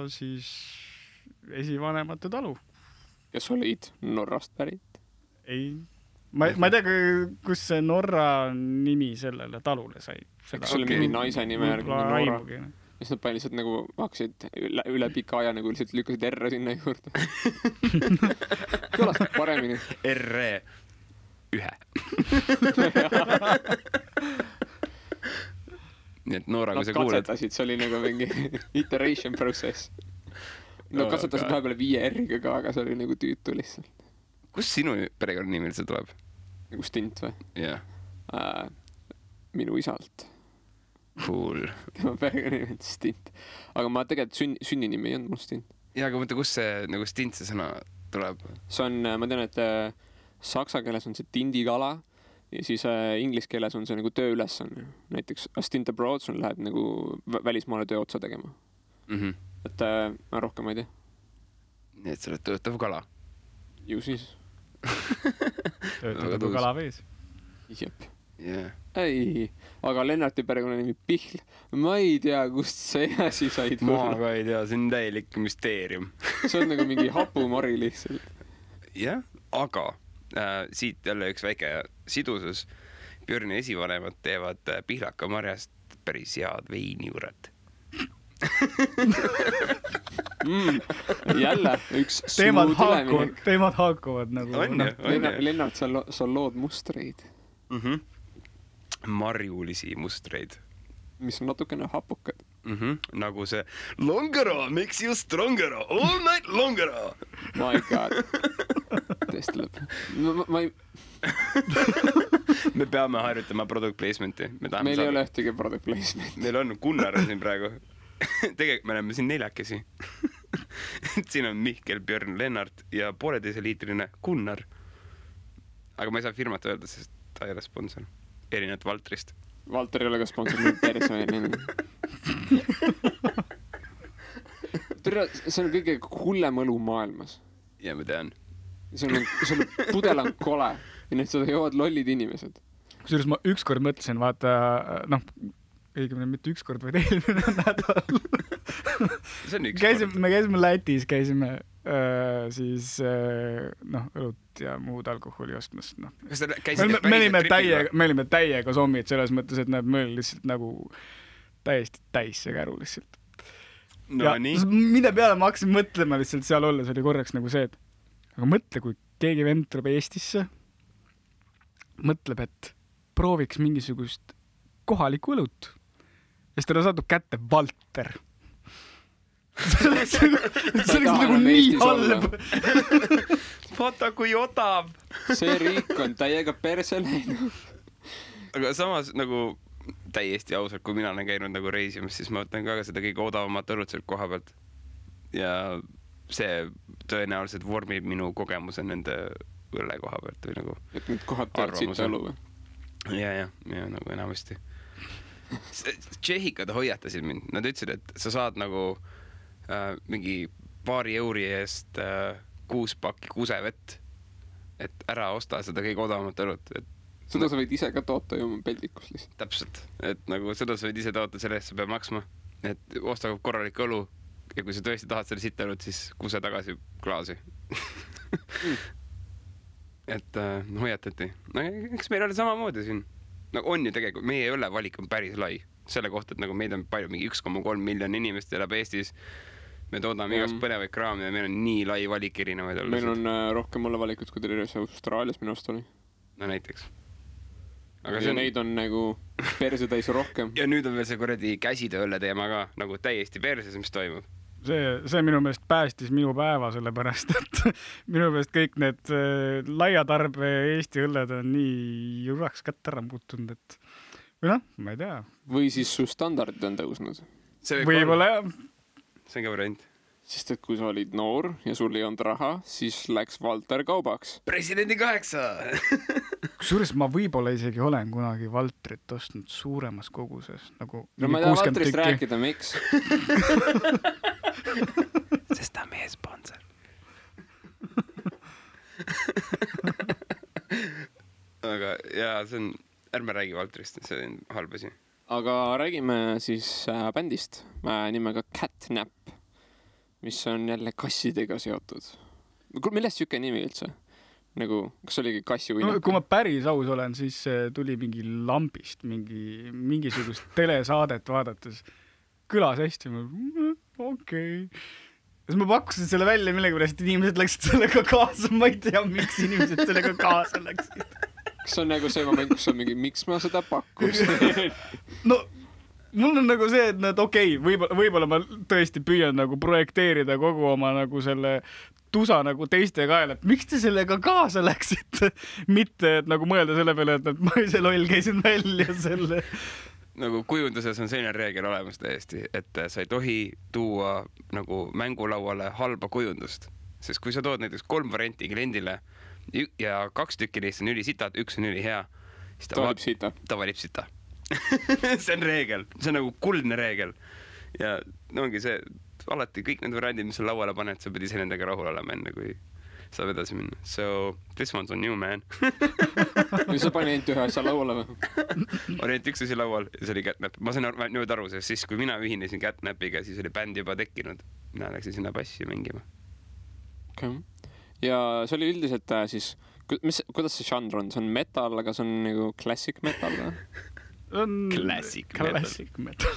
[SPEAKER 2] siis esivanemate talu.
[SPEAKER 1] Kes olid Norrast pärit?
[SPEAKER 2] Ei. Ma ei tea, kus see Norra nimi sellele talule sai.
[SPEAKER 1] Kas oli mingi naise nime järgi Norra? Mis nad pani lihtsalt nagu hakkasid üle pika aja nagu lihtsalt lükkasid R sinna juurde. Kõlas paremini.
[SPEAKER 3] R-1. Nii et Noora, kui sa kuuled.
[SPEAKER 1] Nad katsetasid, see oli nagu mingi iteration process. Nad katsetasid vahepeal 5 R-iga ka, aga see oli nagu tüütu lihtsalt.
[SPEAKER 3] Kus sinu perekonnanimi üldse tuleb?
[SPEAKER 1] Nagu Stint või?
[SPEAKER 3] Jah.
[SPEAKER 1] Minu isalt.
[SPEAKER 3] Cool.
[SPEAKER 1] Tema perekonnanimi on Stint. Aga ma tegelikult sünninimi ei olnud mul Stint.
[SPEAKER 3] Jaa, aga mõtle, kus see nagu Stint see sõna tuleb?
[SPEAKER 1] See on, ma tean, et saksa keeles on see tindikala ja siis inglise keeles on see nagu tööülesanne. Näiteks a stint abroad, sul läheb nagu välismaale töö otsa tegema. Et ma rohkem ei tea.
[SPEAKER 3] Nii et sa oled töötav kala?
[SPEAKER 1] Ju siis.
[SPEAKER 2] Töötav kala vees.
[SPEAKER 1] Jep.
[SPEAKER 3] Yeah.
[SPEAKER 1] Ei, aga Lennarti perekonnanimi Pihl. Ma ei tea, kust see asi said.
[SPEAKER 3] Ma ka ei tea, see on täielik müsteerium.
[SPEAKER 1] See on nagu mingi hapumari lihtsalt.
[SPEAKER 3] Jah, aga siit jälle üks väike sidusus. Björni esivanemad teevad pihlakamarjast päris head veinijuuret.
[SPEAKER 1] Jälle üks smooth üleminek.
[SPEAKER 2] Teemad haakuvad nagu.
[SPEAKER 1] Lennart, sa lood mustreid.
[SPEAKER 3] Marjulisi mustreid.
[SPEAKER 1] Mis on natukene hapukad.
[SPEAKER 3] Nagu see Longero makes you strongero, all night longero.
[SPEAKER 1] My god. Tõesti lõpp. Ma ei...
[SPEAKER 3] Me peame harjutama product placement'i.
[SPEAKER 1] Meil ei ole ühtegi product placement.
[SPEAKER 3] Meil on Gunnar siin praegu. Tegelikult me oleme siin 4. Siin on Mihkel, Björn, Lennart ja 1,5 liitrine Gunnar. Aga ma ei saa firmat öelda, sest ta ei ole sponsor. Erinevalt Valtrist.
[SPEAKER 1] Valter ei ole ka sponsor, nüüd perse. See on kõige hullem õlu maailmas.
[SPEAKER 3] Ja ma tean.
[SPEAKER 1] Sul pudel on kole ja nüüd seda joovad lollid inimesed.
[SPEAKER 2] Kusjuures ma ükskord mõtlesin, vaata, õigemini mitte ükskord, vaid eelmine nädal.
[SPEAKER 3] See on ükskord.
[SPEAKER 2] Me käisime Lätis, siis õlut ja muud alkoholi ostmas.
[SPEAKER 3] Kas te käisite päriselt
[SPEAKER 2] me olime täiega sommid selles mõttes, et me olime lihtsalt nagu täiesti täis see käru lihtsalt.
[SPEAKER 3] No nii.
[SPEAKER 2] Mille peale ma hakkasin mõtlema lihtsalt seal olles, oli korraks nagu see, et aga mõtle, kui keegi vend tuleb Eestisse, mõtleb, et prooviks mingisugust kohalikku õlut. Ja siis talle satub kätte Valter. See oleks nagu nii halb.
[SPEAKER 3] Vaata, kui odav.
[SPEAKER 1] See riik on täiega perse läinud.
[SPEAKER 3] Aga samas nagu täiesti ausalt, kui mina olen käinud nagu reisimas, siis ma võtan ka seda kõige odavamat õlut sealt koha pealt. Ja see tõenäoliselt vormib minu kogemuse nende õlle koha pealt või nagu
[SPEAKER 1] et nüüd kohad tead siit õlu või?
[SPEAKER 3] Ja nagu enamasti. Tšehhikad hoiatasid mind. Nad ütlesid, et sa saad nagu mingi paari euri eest 6 pakki kusevett, et ära osta seda kõige odavamat õlut.
[SPEAKER 1] Seda sa võid ise ka toota ju peldikus lihtsalt.
[SPEAKER 3] Täpselt. Et nagu seda sa võid ise toota, selle eest sa peab maksma. Et osta korralik õlu ja kui sa tõesti tahad selle sitta õlut, siis kuse tagasi klaasi. Et hoiatati. Eks meil oli samamoodi siin. On ju tegelikult, meie õlle valik on päris lai. Selle kohta, et nagu meid on palju, mingi 1,3 miljon inimest elab Eestis. Me toodame igast põnevaid kraami ja meil on nii lai valik erinevaid õllesid.
[SPEAKER 1] Meil on rohkem õlle valikut, kui terves Austraalias minu arust oli.
[SPEAKER 3] No näiteks.
[SPEAKER 1] Aga neid on nagu perse täis rohkem.
[SPEAKER 3] Ja nüüd on veel see kuradi käsitööõlle teema ka, nagu täiesti perses, mis toimub.
[SPEAKER 2] see minu meelest päästis minu päeva, sellepärast, et minu meelest kõik need laiatarbe Eesti õlled on nii juraks kätt ära muutunud, et või noh, ma ei tea.
[SPEAKER 1] Või siis su standardid on tõusnud.
[SPEAKER 2] Võib-olla jah.
[SPEAKER 3] See on ka variant.
[SPEAKER 1] Sest et kui sa olid noor ja sul ei olnud raha, siis läks Valter kaubaks.
[SPEAKER 3] Presidendi 8!
[SPEAKER 2] Kusjuures ma võib-olla isegi olen kunagi Valtrit ostnud suuremas koguses. Nagu
[SPEAKER 1] no ma ei taha Valtrist rääkida, miks?
[SPEAKER 3] Sest ta on meie sponsor. Aga jaa, see on... Ärme räägi Valtrist, see on halb asi.
[SPEAKER 1] Aga räägime siis bändist nimega Catnap, mis on jälle kassidega seotud. Millest siuke nimi üldse? Nagu, kas oligi kassi uinak?
[SPEAKER 2] No, kui ma päris aus olen, siis tuli mingi lambist, mingisugust telesaadet vaadates. Kõlas hästi, okei. Siis ma pakkusin selle välja millegipärast, inimesed läksid sellega kaasa. Ma ei tea, miks inimesed sellega kaasa läksid.
[SPEAKER 1] Kas on nagu see moment, kus on mingi, miks ma seda pakkusin?
[SPEAKER 2] No, mul on nagu see, et okei, võib-olla ma tõesti püüan nagu projekteerida kogu oma nagu selle tusa nagu teiste kaela, et miks te sellega kaasa läksite? Mitte, et nagu mõelda selle peale, et ma ise loll käisin välja selle.
[SPEAKER 3] Nagu kujunduses on selline reegel olemas täiesti, et sa ei tohi tuua nagu mängulauale halba kujundust. Sest kui sa tood näiteks 3 varianti kliendile ja 2 tükki neist on ülisitad, 1 on ülihea, siis ta valib sita. See on reegel, see on nagu kuldne reegel. Ja ongi see, alati kõik need variandid, mis sa lauale paned, sa pead ise nendega rahul olema enne, kui saab edasi minna. So, this one's on you, man.
[SPEAKER 1] Või sa pani ainult ühe asja lauale või?
[SPEAKER 3] Oli ainult üks asi laual ja see oli Catnap. Ma sain nüüd aru, sest siis, kui mina ühinesin Catnapiga, siis oli bänd juba tekkinud. Mina läksin sinna bassi mängima.
[SPEAKER 1] Okay. Ja see oli üldiselt siis, kuidas see žanr on? See on metal, aga see on nagu classic metal või?
[SPEAKER 3] Classic
[SPEAKER 2] metal.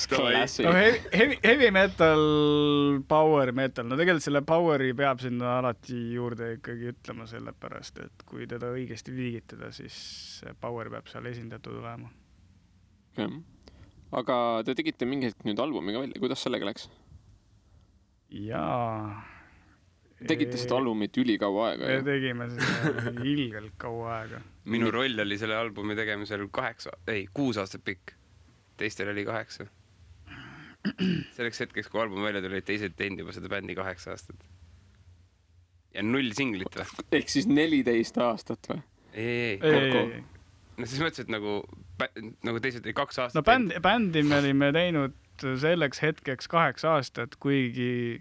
[SPEAKER 1] Classic.
[SPEAKER 2] No, heavy metal, power metal. No tegelikult selle poweri peab sinna alati juurde ikkagi ütlema sellepärast, et kui teda õigesti viigitada, siis power peab seal esindatud olema.
[SPEAKER 1] Okay. Aga te tegite mingi hetk nüüd albumiga välja. Kuidas sellega läks?
[SPEAKER 2] Jaa.
[SPEAKER 1] Tegite seda albumit ülikaua aega?
[SPEAKER 2] Me tegime seda ilgelt kaua aega.
[SPEAKER 3] Minu roll oli selle albumi tegemisel 6 aastat pikk. Teistel oli 8. Selleks hetkeks, kui album välja tuli, teised teinud juba seda bändi 8 aastat. Ja 0 singlit või?
[SPEAKER 1] Ehk siis 14 aastat või?
[SPEAKER 3] Ei. No siis mõtlesin, et nagu teised oli 2 aastat.
[SPEAKER 2] No bändi me olime teinud selleks hetkeks 8 aastat, kuigi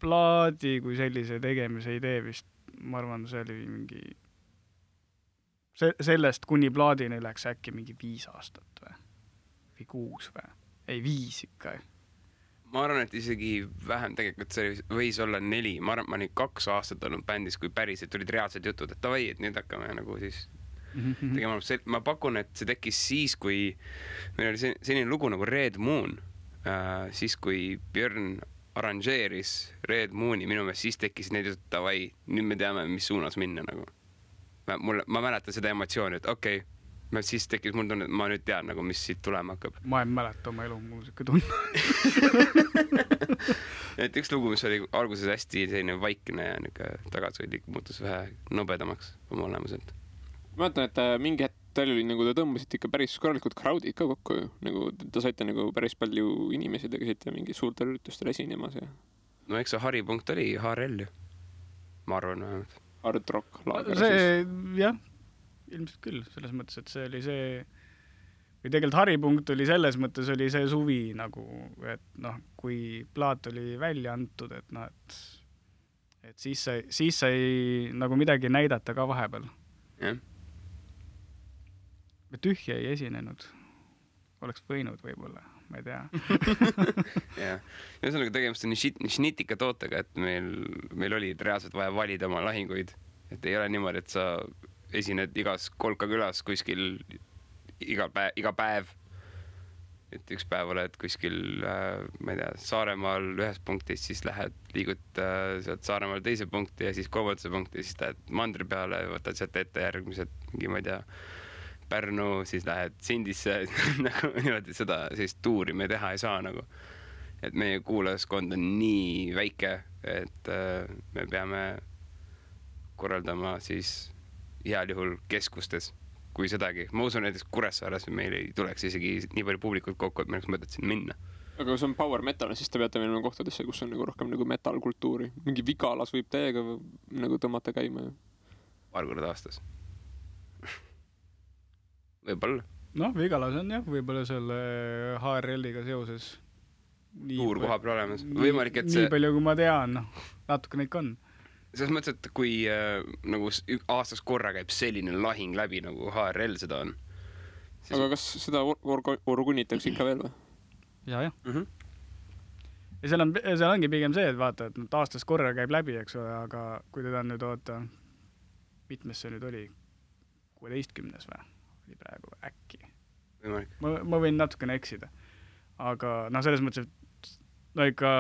[SPEAKER 2] plaadi kui sellise tegemise idee vist, ma arvan, see oli mingi sellest kuni plaadini läks äkki mingi 5 aastat või 6 või? Ei, 5 ikka.
[SPEAKER 3] Ma arvan, et isegi vähem tegelikult see võis olla 4. Ma arvan, et ma olin 2 aastat olnud bändis, kui päriselt tulid reaalsed jutud, et davai, et nüüd hakkame nagu siis tegema. Ma pakun, et see tekkis siis, kui meil oli selline lugu nagu Red Moon, siis kui Björn arranžeeris Red Mooni, minu meelest siis tekkis need jutud, davai, nüüd me teame, mis suunas minna nagu. Ma mäletan seda emotsiooni, et okei, siis tekkis mul tunne, et ma nüüd tean, nagu, mis siit tulema hakkab.
[SPEAKER 2] Ma ei mäleta oma elu muusika tunne.
[SPEAKER 3] Et üks lugu, mis oli alguses hästi selline vaikne ja tagasihoidlik, muutus vähe nobedamaks oma olemuselt.
[SPEAKER 1] Ma mäletan, et mingi hetk teil oli, nagu te tõmbasite ikka päris korralikud crowdid ka kokku ju. Nagu te saite nagu päris palju inimesi, te käisite mingi suurtel üritustel esinemas ja...
[SPEAKER 3] No eks see haripunkt oli HRL ju. Ma arvan vähemalt.
[SPEAKER 1] Hard rock laager
[SPEAKER 2] see, siis. Jah, ilmselt küll. Selles mõttes, et see oli see... Või tegelikult haripunkt oli selles mõttes, oli see suvi nagu, et noh, kui plaat oli välja antud, et noh, et siis sai nagu midagi näidata ka vahepeal.
[SPEAKER 3] Jah.
[SPEAKER 2] Me tühja ei esinenud. Oleks võinud võib-olla, ma ei tea.
[SPEAKER 3] Jah. Ühesõnaga tegemist on šnitika tootega, et meil oli reaalselt vaja valida oma lahinguid. Et ei ole niimoodi, et sa esined igas kolkakülas kuskil iga päev. Et üks päev oled kuskil, ma ei tea, Saaremaal ühes punktis, siis liigud sealt Saaremaal teise punkti ja siis kolmandasse punkti, siis lähed mandri peale, võtad sealt ette järgmised, mingi, ma ei tea, Pärnu, siis lähed Sindisse, nagu niimoodi seda sellist tuuri me teha ei saa nagu. et meie kuulajaskond on nii väike, et me peame korraldama siis heal juhul keskustes, kui sedagi. Ma usun näiteks Kuressaares meil ei tuleks isegi nii palju publikut kokku, et meil oleks mõtet siin minna.
[SPEAKER 1] Aga kui see on power metal, siis te peate minema kohtadesse, kus on nagu rohkem nagu metal-kultuuri. Mingi Vigalas võib täiega nagu tõmmata käima.
[SPEAKER 3] Paar korda aastas. Võib-olla.
[SPEAKER 2] Noh, Vigalas on jah, võib-olla selle HRL-iga seoses.
[SPEAKER 3] Suur koha peal olemas. Võimalik, et see...
[SPEAKER 2] Nii palju, kui ma tean, natuke neid on.
[SPEAKER 3] Selles mõttes, et kui nagu aastas korra käib selline lahing läbi, nagu HRL seda on.
[SPEAKER 1] Siis... Aga kas seda orgunitakse ikka veel või?
[SPEAKER 2] Ja. Ja seal ongi pigem see, et vaata, et aastas korra käib läbi, eks ole, aga kui teda nüüd oota, mitmes see nüüd oli? 16. või? Oli praegu äkki. Ma võin natukene eksida. Aga selles mõttes, et no ikka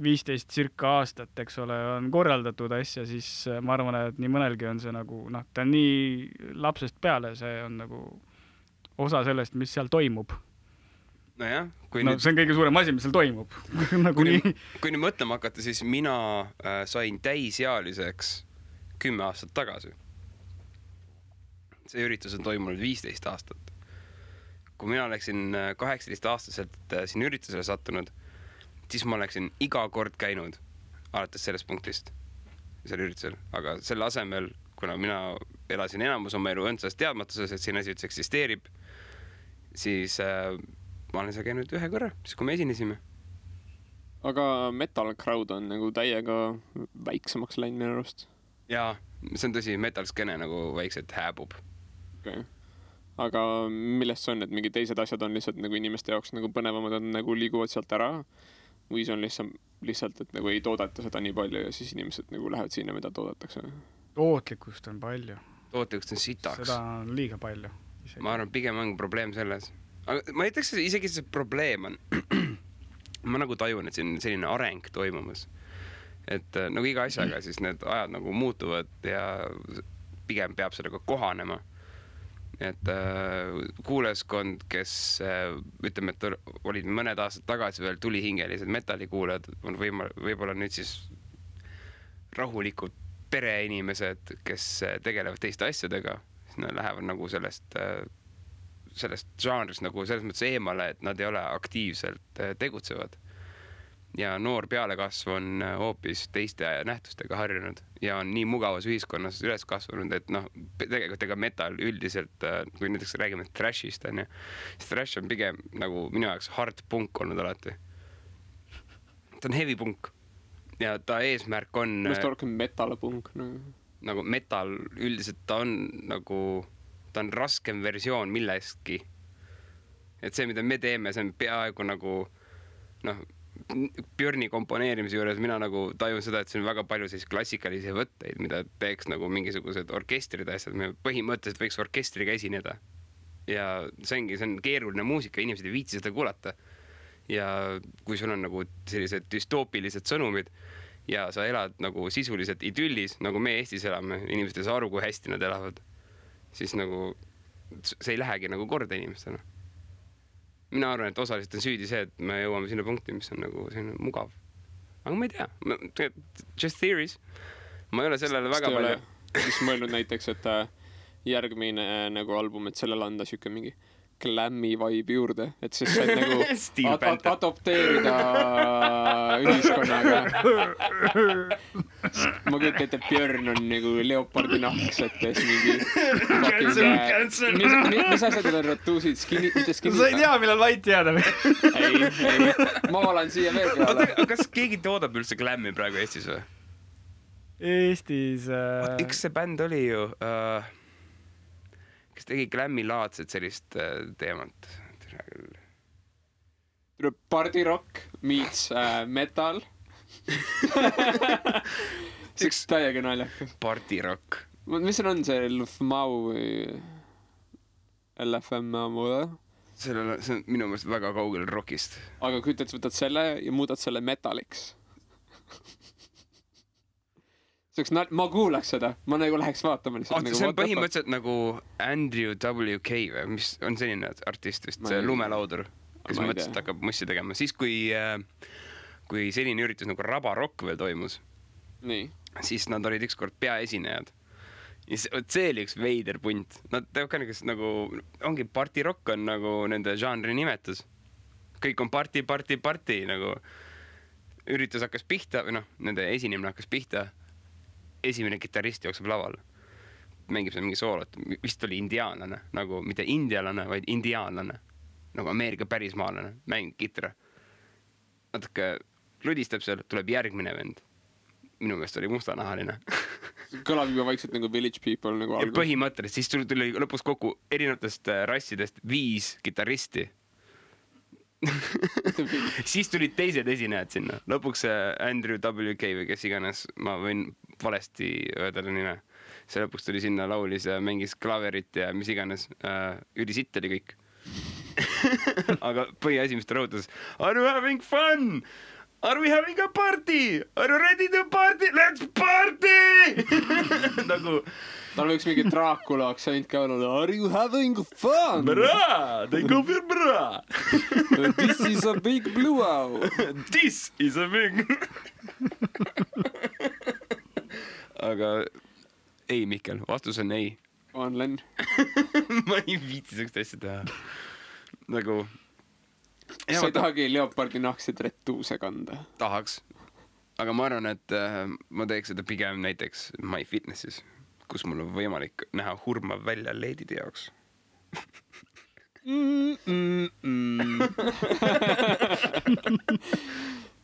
[SPEAKER 2] 15 circa aastat, eks ole, on korraldatud asja, siis ma arvan, et nii mõnelgi on see nagu, ta on nii lapsest peale, see on nagu osa sellest, mis seal toimub.
[SPEAKER 3] Nojah,
[SPEAKER 2] see on kõige suurem asi, mis seal toimub.
[SPEAKER 3] Kui nüüd mõtlema hakata, siis mina sain täisealiseks 10 aastat tagasi. See üritus on toimunud 15 aastat. Kui mina oleksin 18-aastaselt siin üritusele sattunud, siis ma oleksin iga kord käinud alates sellest punktist seal üritusel. Aga selle asemel, kuna mina elasin enamus oma elu õndsas teadmatuses, et siin asi üldse eksisteerib, siis ma olen seal käinud ühe korra, siis kui me esinesime.
[SPEAKER 1] Aga metal crowd on nagu täiega väiksemaks läinud minu arust.
[SPEAKER 3] Jaa, see on tõsi, metal skene nagu väikselt hääbub.
[SPEAKER 1] Okay. Aga millest see on, et mingi teised asjad on lihtsalt nagu inimeste jaoks nagu põnevamad on nagu liiguvad sealt ära või see on lihtsalt, et nagu ei toodeta seda nii palju ja siis inimesed nagu lähevad sinna, mida toodetakse?
[SPEAKER 2] Tootlikkust on palju.
[SPEAKER 3] Tootlikkust on sitaks.
[SPEAKER 2] Seda on liiga palju. Isegi.
[SPEAKER 3] Ma arvan, pigem on probleem selles. Aga ma ei ütleks, isegi see probleem on. Ma nagu tajun, et siin selline areng toimumas. Et nagu iga asjaga siis need ajad nagu muutuvad ja pigem peab sellega kohanema. Et kuulajaskond, kes ütleme, et olid mõned aastad tagasi veel tulihingelised metallikuulajad, on võib-olla nüüd siis rahulikud pereinimesed, kes tegelevad teiste asjadega, siis nad lähevad nagu sellest žanrist nagu selles mõttes eemale, et nad ei ole aktiivselt tegutsevad. Ja noor pealekasv on hoopis teiste nähtustega harjunud ja on nii mugavas ühiskonnas üles kasvanud, et tegelikult ega metal üldiselt, kui näiteks räägime thrashist, siis thrash on pigem nagu minu jaoks hard punk olnud alati. Ta on heavy punk ja ta eesmärk on...
[SPEAKER 1] Mest rohkem metal punk.
[SPEAKER 3] Nagu metal üldiselt ta on nagu... Ta on raskem versioon millestki. Et see, mida me teeme, see on peaaegu nagu Björni komponeerimise juures mina nagu tajun seda, et see on väga palju siis klassikalisi võtteid, mida teeks nagu mingisugused orkestrid asjad. Me põhimõtteliselt võiks orkestriga esineda. Ja see on keeruline muusika, inimesed ei viitsi seda kuulata. Ja kui sul on nagu sellised dystoopilised sõnumid ja sa elad nagu sisuliselt idüllis, nagu me Eestis elame, inimesed ei saa aru, kui hästi nad elavad, siis nagu see ei lähegi nagu korda inimestena. Mina arvan, et osaliselt on süüdi see, et me jõuame sinna punkti, mis on nagu selline mugav. Aga ma ei tea. Just theories. Ma ei ole sellele väga palju.
[SPEAKER 1] Siis mõelnud näiteks, et järgmine nagu album, et sellele anda siuke mingi glammi vibe juurde, et siis saad nagu adopteerida ühiskonnaga. Ma kujutan, et Björn on nagu leopardi nahksetes mingi mis asjad on ratuusid?
[SPEAKER 2] Sa ei tea, millal vait jääda või?
[SPEAKER 1] Ei, ma valan siia veel peale.
[SPEAKER 3] Kas keegi toodab üldse glammi praegu Eestis või?
[SPEAKER 2] Eestis...
[SPEAKER 3] Üks see bänd oli ju... kes tegi glammi-laadset sellist teemat.
[SPEAKER 1] Party rock meets metal. See üks täiega naljakas.
[SPEAKER 3] Party rock.
[SPEAKER 1] Mis on see LFMAU või LFMAU?
[SPEAKER 3] See on minu meelest väga kaugel rockist.
[SPEAKER 1] Aga kui võtad selle ja muudad selle metaliks. Ma kuulaks seda, ma nagu läheks vaatama lihtsalt.
[SPEAKER 3] See on põhimõtteliselt nagu Andrew W.K. või mis on selline artist vist, see lumelaudur. kes mõtles, et hakkab mussi tegema. Siis, kui selline üritus nagu Raba Rock veel toimus,
[SPEAKER 1] nii.
[SPEAKER 3] siis nad olid ükskord peaesinejad. Ja see oli üks veider punt. Nad teevad ka nagu, ongi party rock on nagu nende žanri nimetus. Kõik on party nagu üritus hakkas pihta, või noh, nende esinemine hakkas pihta. Esimene kitarrist jookseb laval. Mängib seal mingi soolot. Vist oli indiaanlane, nagu mitte indialane, vaid indiaanlane. Nagu Ameerika pärismaalane, mängib kitra. Natuke ludistab seal, tuleb järgmine vend. Minu meelest oli mustanahaline.
[SPEAKER 1] Kõlab juba vaikselt nagu Village People nagu
[SPEAKER 3] algus. Ja põhimõtteliselt, siis tuli lõpus kokku erinevatest rassidest 5 kitarristi. Siis tulid teised esinejad sinna. Lõpuks Andrew WK või kes iganes, ma võin valesti öelda nime. See lõpuks tuli sinna, laulis ja mängis klaverit ja mis iganes. Ülisitt oli kõik. Aga põhiasi, mis ta rõhutas: Are you having fun? Are we having a party? Are you ready to party? Let's party! Nagu
[SPEAKER 1] tal võiks mingi Dracula aktsent ka olla. Are you having fun?
[SPEAKER 3] Bra! They go for bra!
[SPEAKER 1] This is a big blue owl.
[SPEAKER 3] This is a big... Aga ei, Mikkel, vastus on ei.
[SPEAKER 1] On Len.
[SPEAKER 3] Ma ei viitsi sellist asja teha. Nagu...
[SPEAKER 1] Sa ei tahagi leopardi nahksid retuuse kanda?
[SPEAKER 3] Tahaks. Aga ma arvan, et ma teeks seda pigem näiteks MyFitnessis, kus mul on võimalik näha hurmav välja leedide jaoks.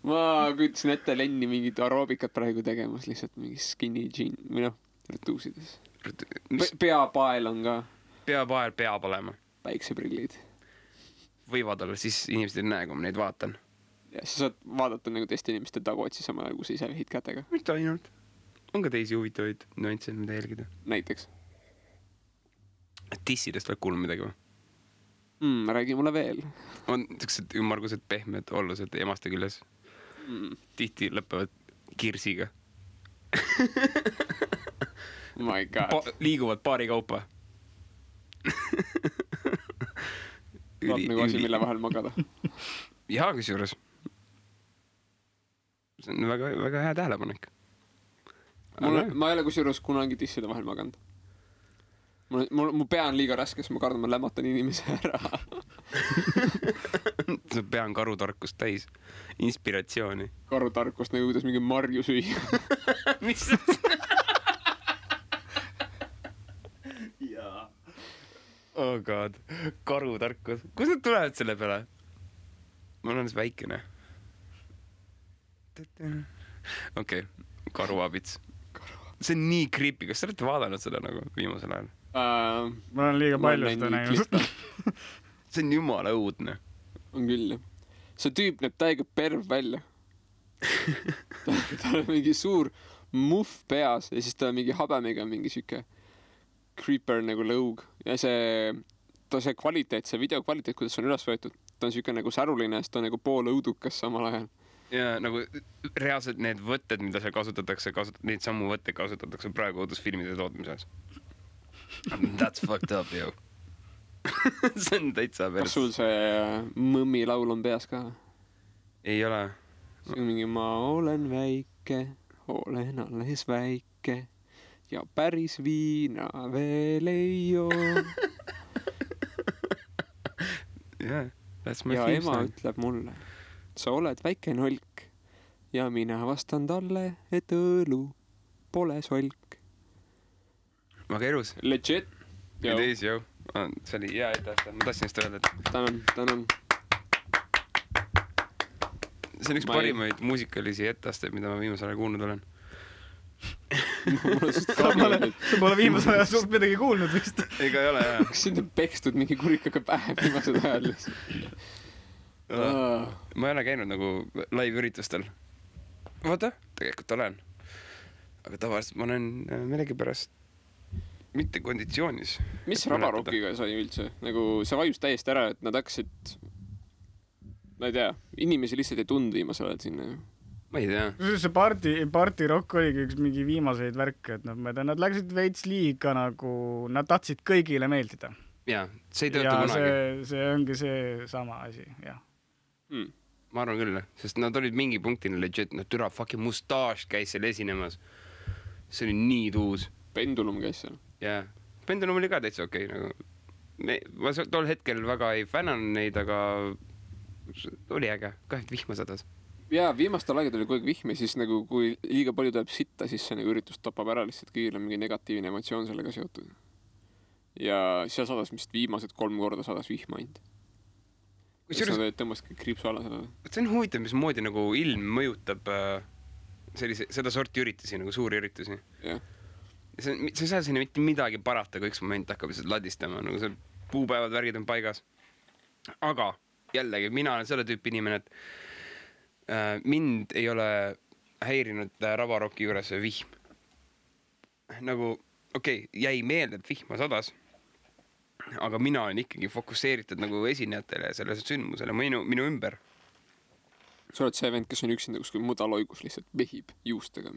[SPEAKER 1] Ma küütasin ette Lenni mingit aeroobikat praegu tegemas, lihtsalt mingi skinny jean, või noh, retuusides. Peapael on ka.
[SPEAKER 3] Peapael peab olema.
[SPEAKER 1] Päikseprillid.
[SPEAKER 3] Võivad olla, siis inimesed ei näe, kui ma neid vaatan.
[SPEAKER 1] Ja sa saad vaadata nagu teiste inimeste taguotsi sama, kui sa ise vehid kätega.
[SPEAKER 3] Mitte ainult. On ka teisi huvitavaid nüansse, mida jälgida.
[SPEAKER 1] Näiteks?
[SPEAKER 3] Tissidest veel kuulnud midagi või?
[SPEAKER 1] Räägi mulle veel.
[SPEAKER 3] On sellised ümmargused pehmed ollused emaste küljes. Tihti lõpevad kirsiga.
[SPEAKER 1] My God.
[SPEAKER 3] Liiguvad paari kaupa.
[SPEAKER 1] Vaat nagu asi, mille vahel magada.
[SPEAKER 3] Jaa, kus juures. See on väga, väga hea tähelepanek.
[SPEAKER 1] Ma ei ole kus juures kunagi tisside vahel maganud. Mu pea on liiga raske, sest ma kardan, ma lämmatan inimese ära.
[SPEAKER 3] See pea on karutarkust täis. Inspiratsiooni.
[SPEAKER 1] Karutarkust nagu kuidas mingi marju süüa.
[SPEAKER 3] Mis? Jaa. Oh god, karutarkus. Kus nad tulevad selle peale? Ma olen väikene. Okei, karuabits. See on nii creepy. Kas sa olete vaadanud seda nagu viimasel ajal?
[SPEAKER 2] Ma olen liiga palju seda näinud.
[SPEAKER 3] See on jumala õudne.
[SPEAKER 1] On küll, jah. See tüüp näeb täiega perv välja. Ta on mingi suur muff peas ja siis ta on mingi habemiga mingi siuke creeper nagu lõug ja see kvaliteet, see video kvaliteet, kuidas see on üles võetud, ta on siuke nagu säruline, sest ta on nagu pool õudukas samal ajal.
[SPEAKER 3] Ja nagu reaalselt need võtted, mida seal kasutatakse, neid sammu võtteid kasutatakse praegu õudusfilmide tootmises. That's fucked up, yo. See on täitsa päris.
[SPEAKER 1] Kas sul see mõmmi laul on peas ka?
[SPEAKER 3] Ei ole.
[SPEAKER 1] See on mingi ma olen väike, olen alles väike ja päris viina veel ei joo.
[SPEAKER 3] Yeah, that's my
[SPEAKER 1] ja
[SPEAKER 3] theme
[SPEAKER 1] ema
[SPEAKER 3] song.
[SPEAKER 1] ütleb mulle, sa oled väike nolk ja mina vastan talle, et õlu pole solk.
[SPEAKER 3] Väga elus.
[SPEAKER 1] Legit.
[SPEAKER 3] It is, yo. See oli hea etteaste. Ma tahtsin just öelda, et...
[SPEAKER 1] Tänan.
[SPEAKER 3] See on üks parimaid muusikalisi etteasteid, mida ma viimasel ajal kuulnud olen.
[SPEAKER 2] Sa pole viimasel ajal suht midagi kuulnud vist.
[SPEAKER 3] Ega ei ole, jah.
[SPEAKER 1] Kas sind on pekstud mingi kurikaga päev viimased ajal?
[SPEAKER 3] Ma ei ole käinud nagu live-üritustel. Vaata, tegelikult olen. Aga tavaliselt ma olen millegipärast mitte konditsioonis.
[SPEAKER 1] Mis Rabarockiga sai üldse? Nagu see vajus täiesti ära, et nad hakkasid, ma ei tea, inimesi lihtsalt ei tundu viimasel ajal sinna.
[SPEAKER 3] Ma ei tea.
[SPEAKER 2] See party rock oligi üks mingi viimaseid värke, et nad läksid veits liiga nagu, nad tahtsid kõigile meeldida.
[SPEAKER 3] jaa, see ei tööta kunagi.
[SPEAKER 2] see ongi see sama asi, jah.
[SPEAKER 3] Ma arvan küll, sest nad olid mingi punktini legit, türa fucking Mustache käis seal esinemas. See oli nii tuus.
[SPEAKER 1] Pendulum käis seal.
[SPEAKER 3] Jaa, Pendulum oli ka täitsa okei, nagu ma tol hetkel väga ei fännan neid, aga oli äge, kahelt vihma sadas.
[SPEAKER 1] Jaa, viimastel aegad oli kogu aeg vihm ja siis nagu kui liiga palju tuleb sitta, siis see nagu üritus tapab ära lihtsalt kõigil on mingi negatiivne emotsioon sellega seotud. Ja seal sadas vist viimased 3 korda sadas vihma ainult. Sa tõmbasid kriipsu alla sellele.
[SPEAKER 3] See on huvitav, mismoodi nagu ilm mõjutab seda sorti üritusi, nagu suuri üritusi.
[SPEAKER 1] Jah.
[SPEAKER 3] Sa ei saa sinna mitte midagi parata, kui üks moment hakkab lihtsalt ladistama, nagu see puupäevad, värgid on paigas. Aga jällegi, mina olen selle tüüpi inimene, et mind ei ole häirinud Ravarocki juures vihm. Nagu, jäi meelde, et vihma sadas, aga mina olen ikkagi fokusseeritud nagu esinejatele ja sellele sündmusele minu ümber.
[SPEAKER 1] Sa oled see vend, kes on üksinda kuskil mudaloigus lihtsalt vehib juustega.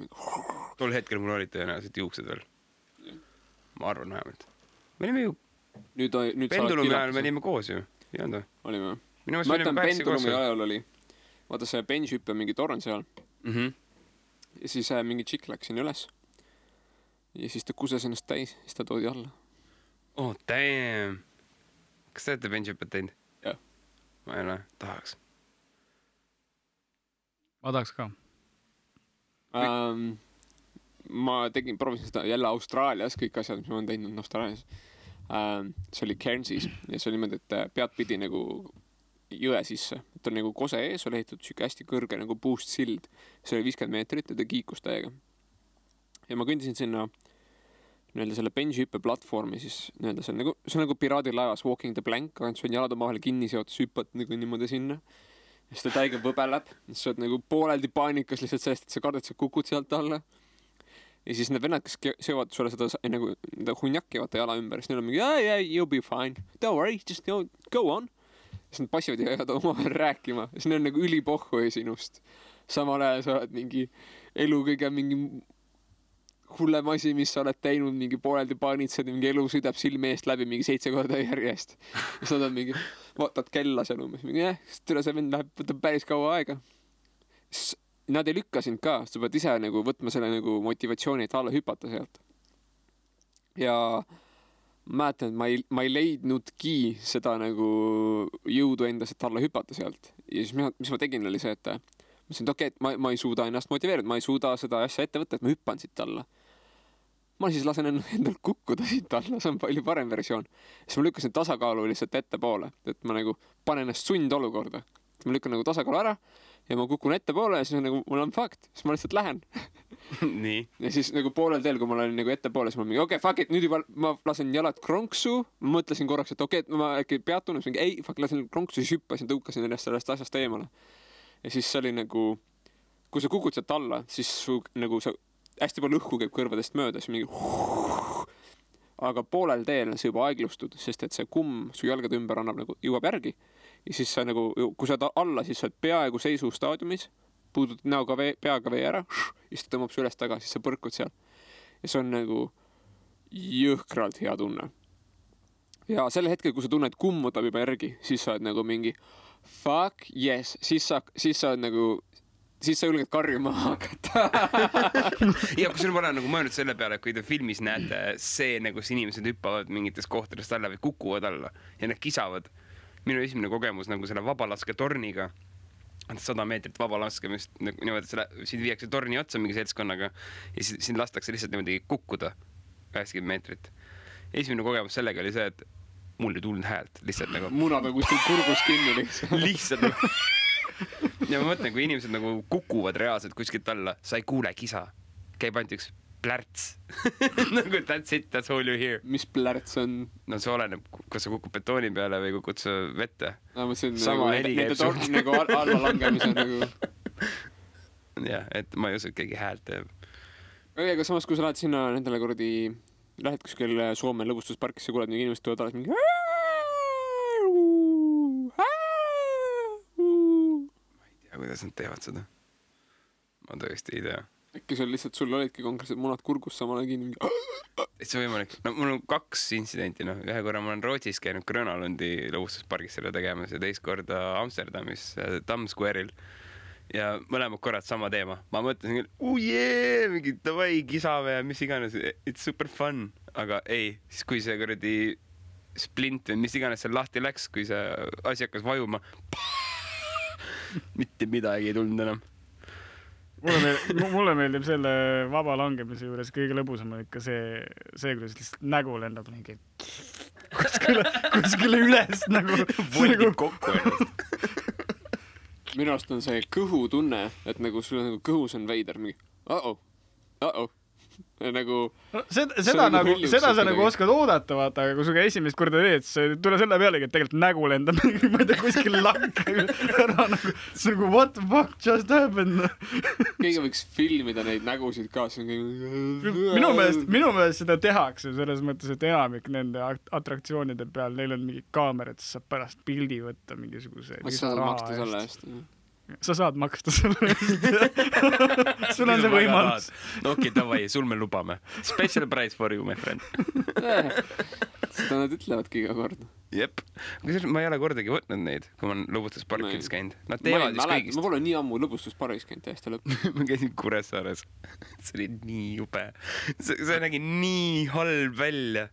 [SPEAKER 3] Tol hetkel mul olid tõenäoliselt juuksed veel. Ma arvan vähemalt. Me olime ju Pendulumi ajal me olime koos ju.
[SPEAKER 1] Olime.
[SPEAKER 3] Ma
[SPEAKER 1] ütlen Pendulumi ajal oli. Vaata see bench-hüppe mingi torn seal. Ja siis mingi tšikk läks sinna üles. Ja siis ta kuses ennast täis. Siis ta toodi alla.
[SPEAKER 3] Oh, damn. Kas te olete bench-hüppet teinud?
[SPEAKER 1] Jah.
[SPEAKER 3] Ma ei ole. Tahaks.
[SPEAKER 2] Ma tahaks ka.
[SPEAKER 1] Ma proovisin seda jälle Austraalias, kõik asjad, mis ma olen teinud Austraalias. See oli Cairnsis ja see oli niimoodi, et pead pidi nagu jõe sisse. Et on nagu kose ees, oli ehitatud siuke hästi kõrge nagu puust sild. See oli 50 meetrit ja ta kiikus täiega. Ja ma kõndisin sinna selle bench-hüppe platvormi siis see on nagu piraadilaevas Walking the Plank, aga see on jalad omavahel kinni seotud, hüppad nagu niimoodi sinna. Ja siis ta täiega võbeleb, siis sa oled nagu pooleldi paanikas lihtsalt sellest, et sa kardad, sa kukud sealt alla. Ja siis need vennad, kes seovad sulle seda nagu hunjakki vaata jala ümber, siis neil on mingi, yeah, you'll be fine, don't worry, just go on. Ja siis nad passivad ja jäävad omavahel rääkima, ja siis neil on nagu ülipohhu sinust. Samal ajal sa oled mingi elu kõige mingi hullem asi, mis sa oled teinud, mingi pooleldi paanitsed, mingi elu sõidab silme eest läbi mingi 7 korda järjest. Ja sa oled mingi, vaatad kella seal umbes, mingi tüle see vend läheb, võtab päris kaua aega. Nad ei lükka sind ka, sa pead ise nagu võtma selle nagu motivatsiooni, et alla hüpata sealt. Ja mäletan, et ma ei leidnudki seda nagu jõudu endas, et alla hüpata sealt. Ja siis mis ma tegin oli see, et mõtlesin, et ma ei suuda ennast motiveerida, ma ei suuda seda asja ette võtta, et ma hüppan siit alla. Ma siis lasen endal kukkuda siit alla, see on palju parem versioon. Siis ma lükkasin tasakaalu lihtsalt ette poole, et ma nagu panen ennast sundolukorda. Ma lükkan nagu tasakaalu ära ja ma kukun ette poole ja siis on nagu, mul on fakt, siis ma lihtsalt lähen.
[SPEAKER 3] Nii.
[SPEAKER 1] Ja siis nagu poolel teel, kui ma olen nagu ette poole, siis ma mingi, fuck it, nüüd juba ma lasen jalad kronksu, ma mõtlesin korraks, et ma äkki peatun, mingi lasen kronksu, siis hüppasin, tõukasin ennast sellest asjast eemale. Ja siis see oli nagu, kui sa kukud sealt alla, siis nagu sa hästi palju õhku käib kõrvadest mööda, siis mingi aga poolel teel sa juba aeglustud, sest et see kumm su jalgade ümber annab nagu jõuab järgi ja siis sa nagu, kui sa alla, siis sa oled peaaegu seisu staadiumis, puudud näoga peaga vee ära ja siis ta tõmbab su üles taga, siis sa põrkud seal ja see on nagu jõhkralt hea tunne ja selle hetkel, kui sa tunned kumm võtab juba järgi, siis sa oled nagu mingi fuck yes, siis sa oled nagu siis sa julged karjuma hakata.
[SPEAKER 3] Ja kui sul ma olen nagu mõelnud selle peale, kui te filmis näete see, kus inimesed hüppavad mingitest kohtadest alla või kukuvad alla ja need kisavad. Minu esimene kogemus nagu selle vabalaske torniga, 100 meetrit vabalaskemist, niimoodi, siin viiakse torni otsa mingi seltskonnaga ja siin lastakse lihtsalt niimoodi kukkuda 80 meetrit. Esimene kogemus sellega oli see, et mul ei tulnud häält, lihtsalt nagu
[SPEAKER 1] munad on kuskil kurgus kinni
[SPEAKER 3] lihtsalt nagu ja ma mõtlen, kui inimesed nagu kukuvad reaalselt kuskilt alla, sa ei kuule kisa. Käib ainult üks plärts. Nagu that's it, that's all you hear.
[SPEAKER 1] Mis plärts on?
[SPEAKER 3] No see oleneb, kas sa kukub betooni peale või kukud sa vette.
[SPEAKER 1] Sama heli käib sul. Nagu alla langemise nagu.
[SPEAKER 3] Jah, et ma ei usu, et keegi häält teeb.
[SPEAKER 1] Aga samas, kui sa lähed sinna nendele kuradi, lähed kuskil Soome lõbustusparkisse, kuuled mingi inimesed tulevad alles mingi
[SPEAKER 3] kuidas nad teevad seda. Ma tõesti ei tea.
[SPEAKER 1] Äkki sul olidki konkreetselt munad kurgus samal ajal kinni.
[SPEAKER 3] See on võimalik. No mul on 2 intsidenti, noh. Ühe korra ma olen Rootsis käinud Grönalundi lõbustuspargis selle tegemas ja teist korda Amsterdamis Times Square'il. Ja mõlemad korrad sama teema. Ma mõtlesin küll, mingi davai, kisame ja mis iganes, it's super fun. Aga ei, siis kui see kuradi splint või mis iganes seal lahti läks, kui see asi hakkas vajuma, mitte midagi ei tulnud enam.
[SPEAKER 2] Mulle meeldib selle vaba langemise juures kõige lõbusam on ikka see, kuidas lihtsalt nägu lendab mingi kuskile üles nagu.
[SPEAKER 3] Voldib kokku ennast.
[SPEAKER 1] Minu arust on see kõhutunne, et nagu sul on nagu kõhus on veider mingi uh-oh. Nagu
[SPEAKER 2] seda sa nagu oskad oodata, vaata, aga kui suga esimest korda teed, siis tule selle pealegi, et tegelikult nägu lendab ma ei tea, kuskil lakka ära nagu, see nagu what the fuck just happened.
[SPEAKER 1] Keegi võiks filmida neid nägusid ka.
[SPEAKER 2] Minu meelest seda tehakse selles mõttes, et enamik nende atraktsioonide peal, neil on mingi kaamerad, siis saab pärast pildi võtta mingisuguse
[SPEAKER 1] lisaraha eest.
[SPEAKER 2] Sa saad maksta selle eest. Sul on see võimalus.
[SPEAKER 3] Okei, davai, sul me lubame. Special price for you, my friend.
[SPEAKER 1] Seda nad ütlevadki iga kord.
[SPEAKER 3] Jep. Ma ei ole kordagi võtnud neid, kui ma olen lõbustusparkides käinud. Nad teevad vist kõigist.
[SPEAKER 1] Ma pole nii ammu lõbustusparkis käinud täiesti lõpp.
[SPEAKER 3] Ma käisin Kuressaares. See oli nii jube. See nägi nii halb välja.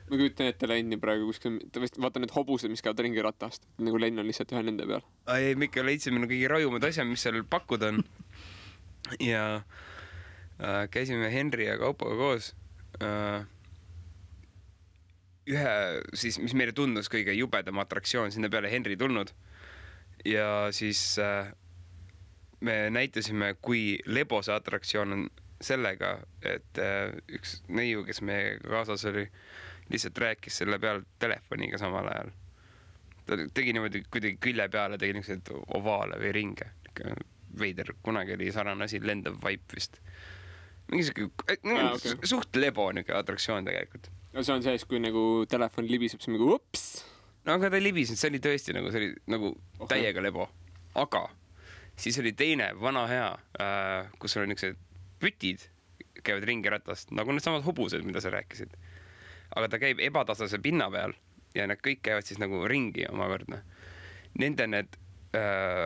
[SPEAKER 1] Ma kujutan ette Lenni praegu kuskil, vaata need hobused, mis käivad ringi ratast. Nagu Lenn on lihtsalt ühe nende peal.
[SPEAKER 3] Ei, Mikka leidsime kõige rajumad asjad, mis seal pakkuda on. Ja käisime Henri ja Kaupoga koos. Ühe, siis, mis meile tundus kõige jubedam atraktsioon, sinna peale Henri tulnud. Ja siis me näitasime, kui lebo see atraktsioon on sellega, et üks neiu, kes meie kaasas oli, lihtsalt rääkis selle peal telefoniga samal ajal. Ta tegi niimoodi kuidagi külje peale, tegi niisugused ovaale või ringe. Veider, kunagi oli sarnane asi, lendav vaip vist. Mingi suht lebo niisugune atraktsioon tegelikult.
[SPEAKER 1] See on sees, kui nagu telefon libiseb, siis nagu ups.
[SPEAKER 3] No aga ta ei libisenud, see oli tõesti nagu, see oli nagu täiega lebo. Aga siis oli teine vana hea, kus oli niisugused pütid, käivad ringi ratast, nagu need samad hobused, mida sa rääkisid. Aga ta käib ebatasase pinna peal ja need kõik käivad siis nagu ringi omakorda. Nende need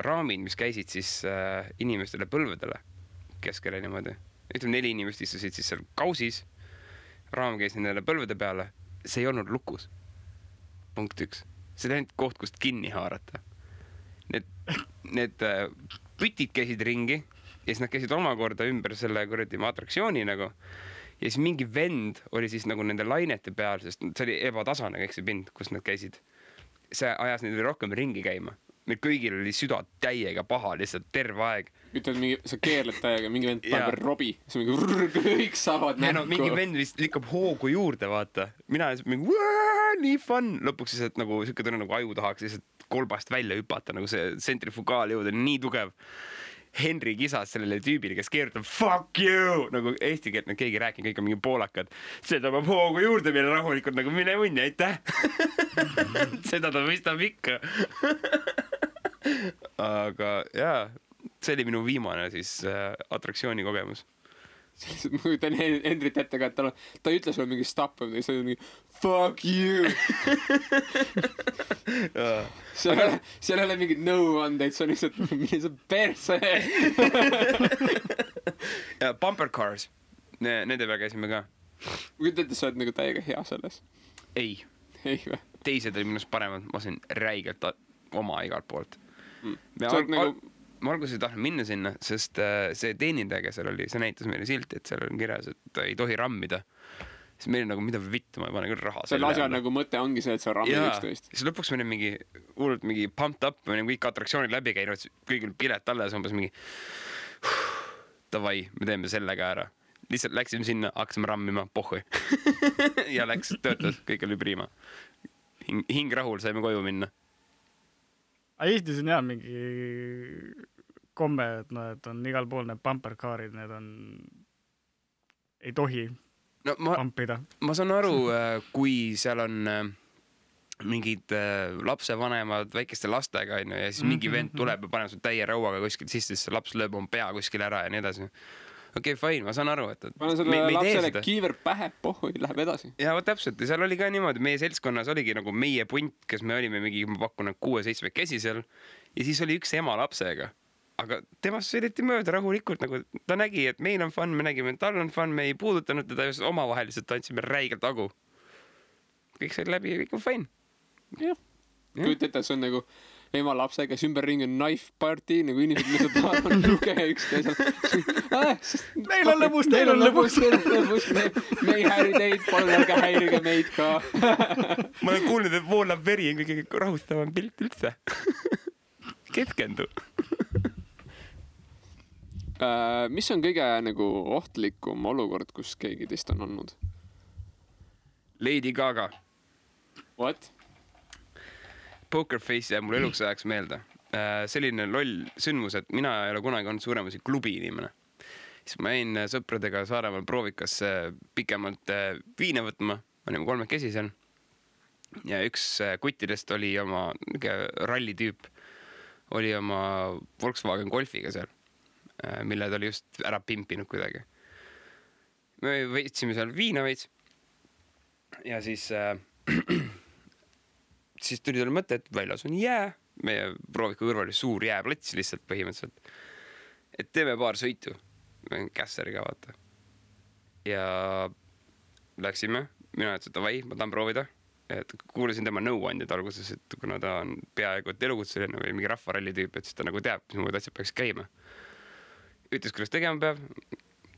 [SPEAKER 3] raamid, mis käisid siis inimestele põlvedele keskele niimoodi. Ütleme 4 inimest istusid siis seal kausis, raam käis nendele põlvede peale, see ei olnud lukus. Punkt 1. See oli ainult koht, kust kinni haarata. Need pütid käisid ringi ja siis nad käisid omakorda ümber selle kuradi atraktsiooni nagu. Ja siis mingi vend oli siis nagu nende lainete peal, sest see oli ebatasane kõik see pind, kus nad käisid. See ajas neid rohkem ringi käima. Meil kõigil oli süda täiega paha lihtsalt terve aeg.
[SPEAKER 1] Ütled, sa keerled täiega, mingi vend paneb robi, siis mingi kõik saavad näkku.
[SPEAKER 3] No, mingi vend vist likkab hoogu juurde, vaata. Mina mingi, nii fun. Lõpuks siis, et nagu siuke tunne nagu aju tahaks lihtsalt kolbast välja hüpata, nagu see sentrifugaal jõud on nii tugev. Henri kisas sellele tüübile, kes keerutab fuck you, nagu eesti keelt nad keegi rääkinud, kõik on mingi poolakad. Seda ma hoogu juurde meile rahulikult nagu mine munni, aitäh. Seda ta mõistab ikka. Aga jaa, see oli minu viimane siis atraktsiooni kogemus.
[SPEAKER 1] Ma kujutan Henrit ette ka, et ta ei ütle sulle mingi stop, see on mingi fuck you. Seal ei ole mingid nõuandeid, see on lihtsalt perse.
[SPEAKER 3] Ja bumper cars, nende peal käisime ka.
[SPEAKER 1] Ma kujutan ette, sa oled nagu täiega hea selles.
[SPEAKER 3] Ei
[SPEAKER 1] või?
[SPEAKER 3] Teised oli minust paremad, ma sain räigelt oma igalt poolt. Ma alguses ei tahtnud minna sinna, sest see teenindaja, kes seal oli, see näitas meile silti, et seal on kirjas, et ei tohi rammida. Siis meil nagu, mida vittu, ma ei pane küll raha.
[SPEAKER 1] Selle asja nagu mõte ongi see, et sa rammid üksteist.
[SPEAKER 3] Siis lõpuks me olime mingi pumped up, me olime kõik atraktsioonid läbi käinud, kõigil pilet alla ja umbes mingi davai, me teeme selle ka ära. Lihtsalt läksime sinna, hakkasime rammima, pohhui. Ja läks, töötas, kõik oli priima. Hing rahul, saime koju minna.
[SPEAKER 2] Eestis on jah mingi komme, et on igal pool need bumpercaarid, need on, ei tohi pumpida. Ma
[SPEAKER 3] saan aru, kui seal on mingid lapsevanemad väikeste lastega ja siis mingi vend tuleb ja paneb sul täie rauaga kuskil sisse, siis laps lööb oma pea kuskil ära ja nii edasi. okei, fine, ma saan aru, et
[SPEAKER 1] panen selle lapsele kiiver pähe, pohhu, läheb edasi.
[SPEAKER 3] Ja vot täpselt, ja seal oli ka niimoodi, meie seltskonnas oligi nagu meie punt, kes me olime mingi, ma pakun 6-7 käsi seal ja siis oli üks ema lapsega. Aga temast sõideti mööda rahulikult, nagu ta nägi, et meil on fun, me nägime, et tal on fun, me ei puudutanud teda, just omavaheliselt tantsime räigelt agu. Kõik sai läbi ja kõik on fine.
[SPEAKER 1] Jah. Kuid ette, see on nagu ema lapse, kes ümberringi on knife party, nagu inimesed lihtsalt tahavad luge üks teisel.
[SPEAKER 2] Meil on lõbus.
[SPEAKER 1] Me ei häiri teid, palun ärge häirige meid ka.
[SPEAKER 3] Ma olen kuulnud, et voolab veri on kõige rahustavam pilt üldse. Keskendu.
[SPEAKER 1] Mis on kõige nagu ohtlikum olukord, kus keegi teist on olnud?
[SPEAKER 3] Lady Gaga.
[SPEAKER 1] What?
[SPEAKER 3] Poker Face jääb mul eluks ajaks meelde. Selline loll sündmus, et mina ei ole kunagi olnud suuremasi klubi inimene. Siis ma jäin sõpradega Saaremaal proovikasse pikemalt viine võtma. Ma olime 3 käsi seal. Ja üks kuttidest oli oma rallitüüp, oli oma Volkswagen Golfiga seal, mille ta oli just ära pimpinud kuidagi. Me võtsime seal viina veits ja siis tuli talle mõte, et väljas on jää. Meie prooviku kõrval oli suur jääplats lihtsalt põhimõtteliselt. Et teeme paar sõitu. Kässeriga vaata. Ja läksime. Mina ütlesin, et davai, ma tahan proovida. Et kuulasin tema nõuandjad alguses, et kuna ta on peaaegu et elukutseline või mingi rahvaralli tüüp, et siis ta nagu teab, mis muud asjad peaks käima. Ütles, kuidas tegema peab.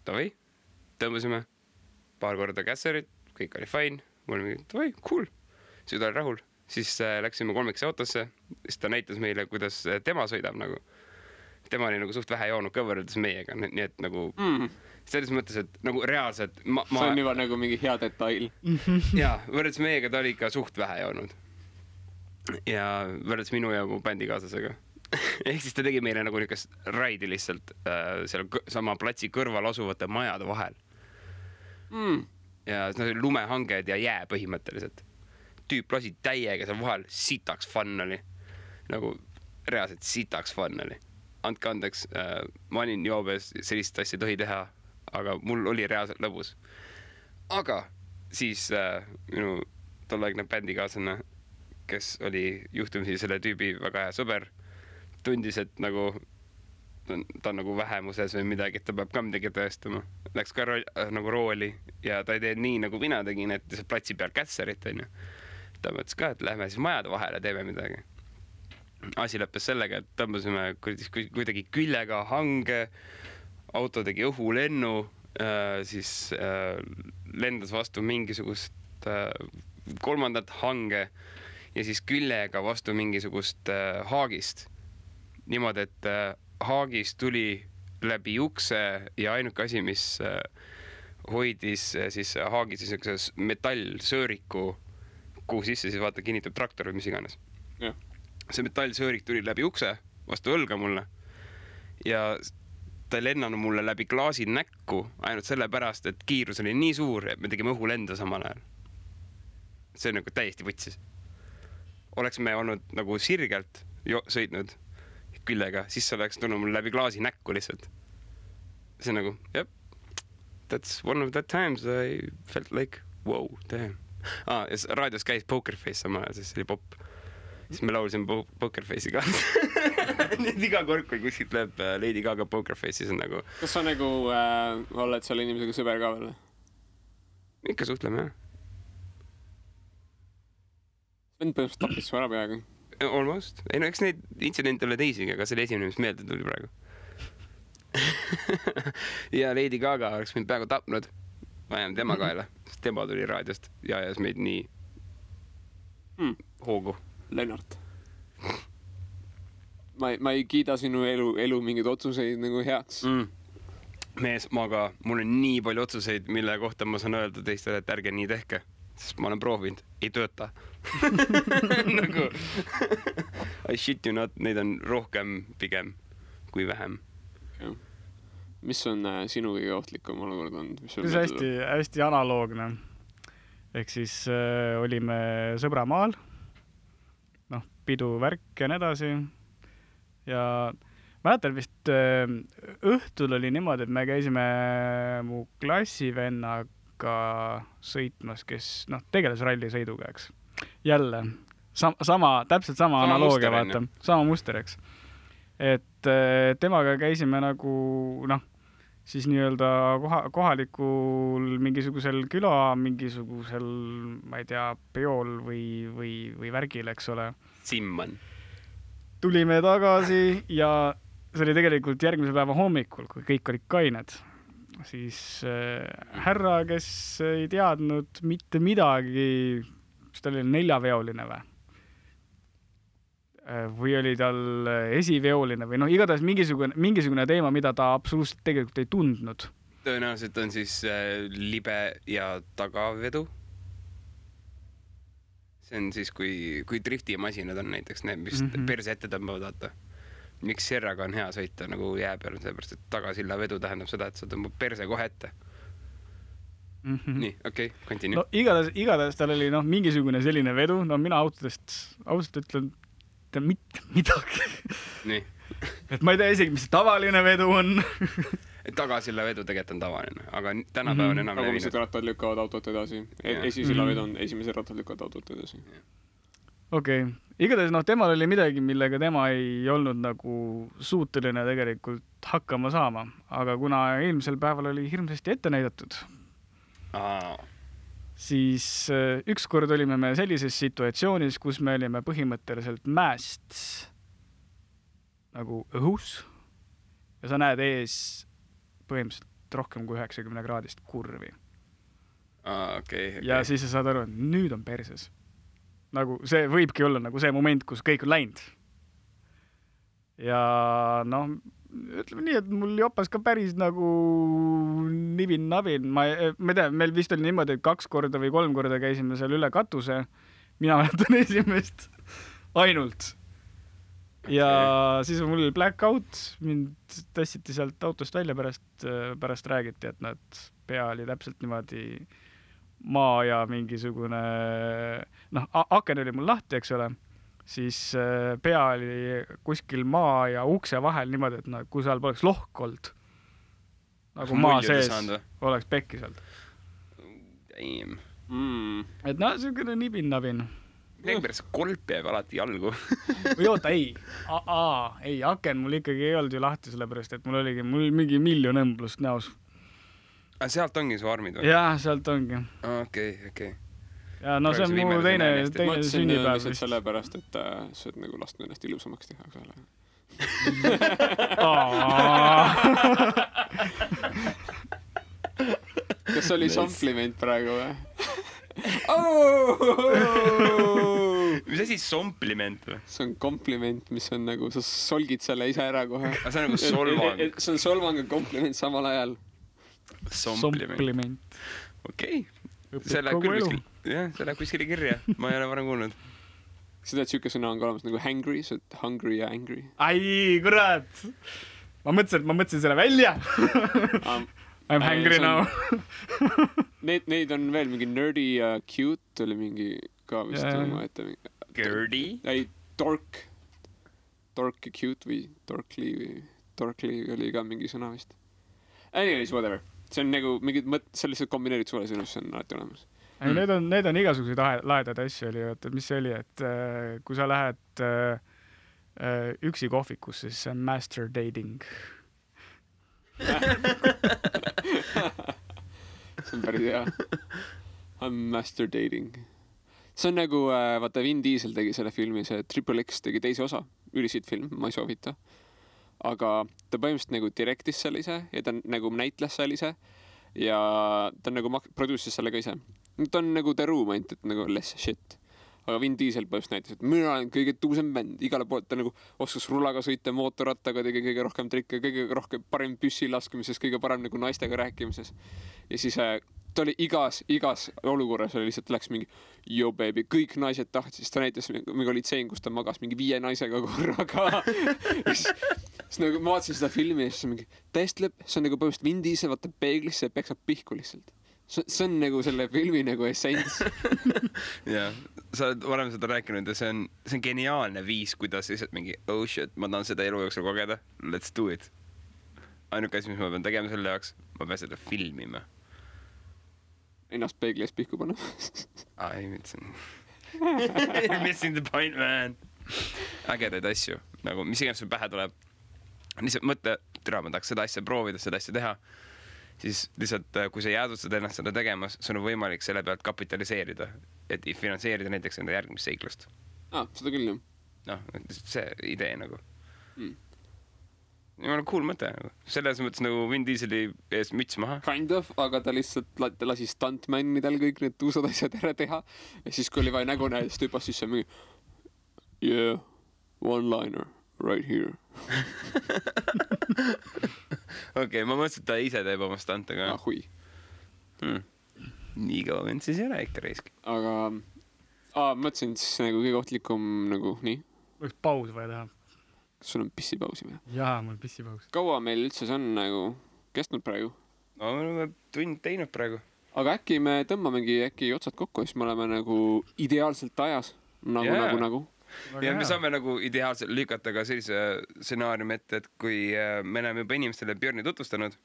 [SPEAKER 3] Davai, tõmbasime paar korda kässerit, kõik oli fine. Mul oli mingi, davai, cool. Siis ta oli rahul. Siis läksime 3 autosse. Siis ta näitas meile, kuidas tema sõidab nagu. Tema oli nagu suht vähe joonud ka võrreldes meiega. Nii et nagu selles mõttes, et nagu reaalselt
[SPEAKER 1] see on juba nagu mingi hea detail.
[SPEAKER 3] Jaa, võrreldes meiega ta oli ikka suht vähe joonud. Ja võrreldes minu ja mu bändikaaslasega. Ehk siis ta tegi meile nagu niukest raidi lihtsalt seal sama platsi kõrval asuvate majade vahel. Ja see oli lumehanged ja jää põhimõtteliselt. Tüüp lasi täiega seal vahel, sitaks fun oli. Nagu reaalselt sitaks fun oli. Andke andeks, ma olin joobes, sellist asja tohi teha, aga mul oli reaalselt lõbus. Aga siis minu tolleaegne bändikaaslane, kes oli juhtumisi selle tüübi väga hea sõber, tundis, et nagu ta on nagu vähemuses või midagi, et ta peab ka midagi tõestama. Läks ka nagu rooli ja ta ei tee nii, nagu mina tegin, et see platsi peal kässerit on ju. Ta mõtles ka, et lähme siis majade vahele, teeme midagi. Asi lõppes sellega, et tõmbasime kuidagi küljega hange, auto tegi õhulennu, siis lendas vastu mingisugust 3. hange ja siis küljega vastu mingisugust haagist. Niimoodi, et haagist tuli läbi ukse ja ainuke asi, mis hoidis siis haagi siis metallsööriku, kuhu sisse siis vaata kinnitab traktor või mis iganes.
[SPEAKER 1] Ja.
[SPEAKER 3] See metallsöörik tuli läbi ukse vastu õlga mulle ja ta ei lennanud mulle läbi klaasi näkku ainult selle pärast, et kiirus oli nii suur, et me tegime õhulenda samal ajal. See on nagu täiesti võtsis. Oleks me olnud nagu sirgelt sõitnud küljega, siis see oleks tulnud mul läbi klaasi näkku lihtsalt. See on nagu, yep, that's one of that times I felt like, wow, damn. Ja raadios käis Poker Face samal ajal, siis oli pop. Siis me laulsime Poker Face'i ka. Nüüd iga kord, kui kuskilt läheb Lady Gaga Poker Face, siis on nagu...
[SPEAKER 1] Kas sa nagu oled selle inimesega sõber ka veel?
[SPEAKER 3] Ikka suhtleme, jah.
[SPEAKER 1] Vend põhimõtteliselt tapis su ära peaga.
[SPEAKER 3] Almost. Ei no, eks neid intsidente ole teisigi, aga see oli esimene, mis meelde tuli praegu. Ja Lady Gaga oleks mind peaaegu tapnud. Ma jääme tema kaela, sest tema tuli raadiost ja ajas meid nii hoogu.
[SPEAKER 1] Lennart. Ma ei kiida sinu elu mingeid otsuseid nagu heaks.
[SPEAKER 3] Mees, mul on nii palju otsuseid, mille kohta ma saan öelda teistele, et ärge nii tehke. Sest ma olen proovinud, ei tööta. Nagu I shit you not, neid on rohkem pigem kui vähem.
[SPEAKER 1] Okay. Mis on sinu kõige ohtlikum olukord olnud?
[SPEAKER 2] See hästi analoogne. Ehk siis olime sõbramaal, pidu värk ja nii edasi. Ja mäletan vist õhtul oli niimoodi, et me käisime mu klassivennaga sõitmas, kes tegeles rallisõiduga, eks. Jälle, täpselt sama analoogia, vaata. Sama muster, eks. Et temaga käisime nagu, siis nii-öelda kohalikul mingisugusel mingisugusel, ma ei tea, peol või värgil, eks ole.
[SPEAKER 3] Simman.
[SPEAKER 2] Tulime tagasi ja see oli tegelikult järgmise päeva hommikul, kui kõik olid kained. Siis härra, kes ei teadnud mitte midagi, mis tal oli 4-veoline või oli tal esiveoline või igatahes mingisugune teema, mida ta absoluutselt tegelikult ei tundnud.
[SPEAKER 3] Tõenäoliselt on siis libe ja tagavedu. See on siis, kui driftimasinad on näiteks need, mis perse ette tõmbavad, vaata. Miks Serraga on hea sõita nagu jää peal, sellepärast, et tagasilla vedu tähendab seda, et sa tõmbab perse kohe ette. Nii, okei, continue.
[SPEAKER 2] Igatahes tal oli mingisugune selline vedu, mina autodest ausalt ütlen mitte midagi.
[SPEAKER 3] Nii.
[SPEAKER 2] Et ma ei tea isegi, mis tavaline vedu on.
[SPEAKER 3] Tagasilla vedu tegelikult on tavaline, aga tänapäev on enam levinud.
[SPEAKER 1] Tagumised rattad lükkavad autot edasi. Esisilla vedu on esimesed rattad lükkavad autot edasi.
[SPEAKER 2] Okei. Igatahes temal oli midagi, millega tema ei olnud nagu suuteline tegelikult hakkama saama. Aga kuna eelmisel päeval oli hirmsasti ette näidatud, siis ükskord olime me sellises situatsioonis, kus me olime põhimõtteliselt mäest nagu õhus ja sa näed ees põhimõtteliselt rohkem kui 90 kraadist kurvi.
[SPEAKER 3] Okay.
[SPEAKER 2] Ja siis sa saad aru, et nüüd on perses. Nagu see võibki olla nagu see moment, kus kõik on läinud. Ja ütleme nii, et mul jopas ka päris nagu nibin-nabin. Ma tean, meil vist oli niimoodi, et 2 korda või 3 korda käisime seal üle katuse. Mina mäletan esimest ainult. Ja siis mul oli blackout. Mind tassiti sealt autost välja pärast räägiti, et pea oli täpselt niimoodi maa ja mingisugune... aken oli mul lahti, eks ole. Siis pea oli kuskil maa ja ukse vahel niimoodi, et kui seal poleks lohk olnud, nagu maa sees oleks pekki sealt. Et selline nibin-nabin.
[SPEAKER 3] Pärast kolp jääb alati jalgu.
[SPEAKER 2] Või oota, ei, aken mul ikkagi ei olnud ju lahti, sellepärast, et mul mingi miljon õmblust näos.
[SPEAKER 3] Sealt ongi su armid või?
[SPEAKER 2] Jah, sealt ongi.
[SPEAKER 3] Okei.
[SPEAKER 2] Ja see on mu teine sünnipäev.
[SPEAKER 1] Mõtlesin sellepärast, et sa oled nagu lasknud ennast ilusamaks teha. Kas oli sompliment praegu või?
[SPEAKER 3] Mis asi sompliment või?
[SPEAKER 1] See on kompliment, mis on nagu, sa solgid selle ise ära kohe.
[SPEAKER 3] See on nagu solvang.
[SPEAKER 1] See on solvang ja kompliment samal ajal.
[SPEAKER 2] Sompliment.
[SPEAKER 3] Okei. See läheb kuskile kirja. Ma ei ole varem kuulnud.
[SPEAKER 1] Seda, et siuke sõna on ka olemas nagu hangry, see on hungry ja angry.
[SPEAKER 2] Ai, kurat! Ma mõtlesin selle välja. I'm hungry now.
[SPEAKER 1] Neid on veel mingi nerdy ja cute oli mingi ka vist oma ette.
[SPEAKER 3] Gerdy?
[SPEAKER 1] Ei, dork ja cute või dorkly oli ka mingi sõna vist. Anyways, whatever. See on nagu mingid sellised kombineerid sulle sõnus, see on alati olemas.
[SPEAKER 2] Need on igasuguseid laedad asju oli, et mis see oli, et kui sa lähed üksi kohvikusse, siis see on master dating.
[SPEAKER 1] See on päris hea. I'm master dating. See on nagu, vaata Vin Diesel tegi selle filmi, see Triple X tegi teise osa, ülisiid film, ma ei soovita. Aga ta põhimõtteliselt nagu direktis selle ise ja ta nagu näitles selle ise ja ta nagu produces selle ka ise. Ta on nagu The Room ainult, et nagu less shit. Aga Vin Diesel põhimõtteliselt näitas, et mina olen kõige tuusem bänd. Igale poolt ta nagu oskas rullaga sõita, mootorrattaga tegi kõige rohkem trikke, kõige rohkem parem püssi laskemises, kõige parem nagu naistega rääkimises. Ja siis ta oli igas olukorras oli lihtsalt läks mingi yo baby, kõik naised tahtsid, siis ta näitas mingi oli tseen, kus ta magas mingi 5 naisega korraga. Siis nagu ma vaatasin seda filmi ja siis mingi täiesti lõpp, see on nagu põhimõtteliselt Vin Diesel vaatab peeglisse ja peksab pihku lihtsalt. See on nagu selle filmi nagu essents.
[SPEAKER 3] Jah, sa oled varem seda rääkinud ja see on geniaalne viis, kuidas lihtsalt mingi oh shit, ma tahan seda elu jooksul kogeda, let's do it. Ainuke asi, mis ma pean tegema selle jaoks, ma pean seda filmima.
[SPEAKER 1] Ennast peegli ees pihku panna.
[SPEAKER 3] Ei mõtlesin. Missing the point, man. Ägedaid asju, nagu mis iganes sul pähe tuleb. Lihtsalt mõtle, ma tahaks seda asja proovida, seda asja teha. Siis lihtsalt, kui sa jäädustad ennast seda tegemas, sul on võimalik selle pealt kapitaliseerida, et finantseerida näiteks enda järgmist seiklust.
[SPEAKER 1] Seda küll, jah.
[SPEAKER 3] Noh, see idee nagu. Jumala cool mõte. Selles mõttes nagu Vin Dieseli ees müts maha.
[SPEAKER 1] Kind of, aga ta lihtsalt lasi stuntmannidel kõik need tuusad asjad ära teha. Ja siis, kui oli vaja nägu näha, siis tüüpas sisse mingi yeah, one-liner right here.
[SPEAKER 3] Okei, ma mõtlesin, et ta ise teeb oma stantega.
[SPEAKER 1] Hui.
[SPEAKER 3] Nii kaua vend siis ei ole ikka reiski.
[SPEAKER 1] Aga mõtlesin siis nagu kõige ohtlikum nagu nii.
[SPEAKER 2] Võiks paus vaja teha.
[SPEAKER 1] Kas sul on pissipausi või?
[SPEAKER 2] Jaa, mul pissipaus.
[SPEAKER 1] Kaua meil üldse see on nagu kestnud praegu?
[SPEAKER 3] No, me oleme tund teinud praegu.
[SPEAKER 1] Aga äkki me tõmbamegi otsad kokku, siis me oleme nagu ideaalselt ajas. Nagu.
[SPEAKER 3] Ja me saame nagu ideaalselt lükata ka sellise stsenaariumi ette, et kui me oleme juba inimestele Björni tutvustanud,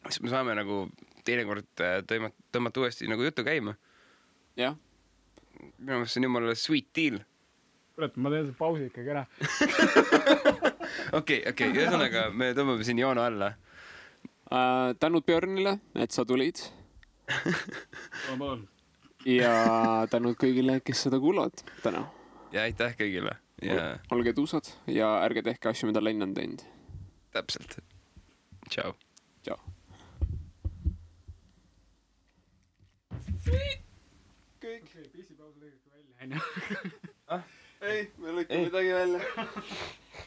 [SPEAKER 3] siis me saame nagu teinekord tõmmata uuesti nagu juttu käima.
[SPEAKER 1] Jah.
[SPEAKER 3] Minu mõttes see on jumala sweet deal.
[SPEAKER 2] Kurat, ma teen see pausi ikkagi ära.
[SPEAKER 3] Okei, ühesõnaga me tõmbame siin joone alla.
[SPEAKER 1] Tänud Björnile, et sa tulid. Ja tänud kõigile, kes seda kuulavad täna.
[SPEAKER 3] Ja aitäh kõigile. Ja...
[SPEAKER 1] Olge tuusad ja ärge tehke asju, mida Lenn on teinud.
[SPEAKER 3] Täpselt. Ciao.
[SPEAKER 1] Ciao. Kõik.
[SPEAKER 2] Pissipaus lõigake välja,
[SPEAKER 1] Ei, me lõikame midagi välja.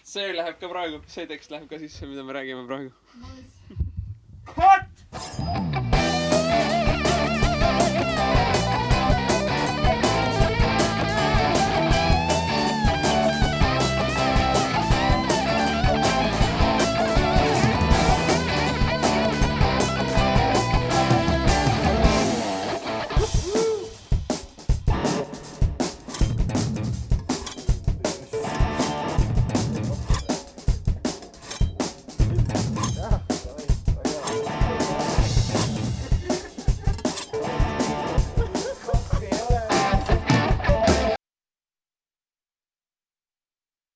[SPEAKER 1] See läheb ka praegu. See tekst läheb ka sisse, mida me räägime praegu.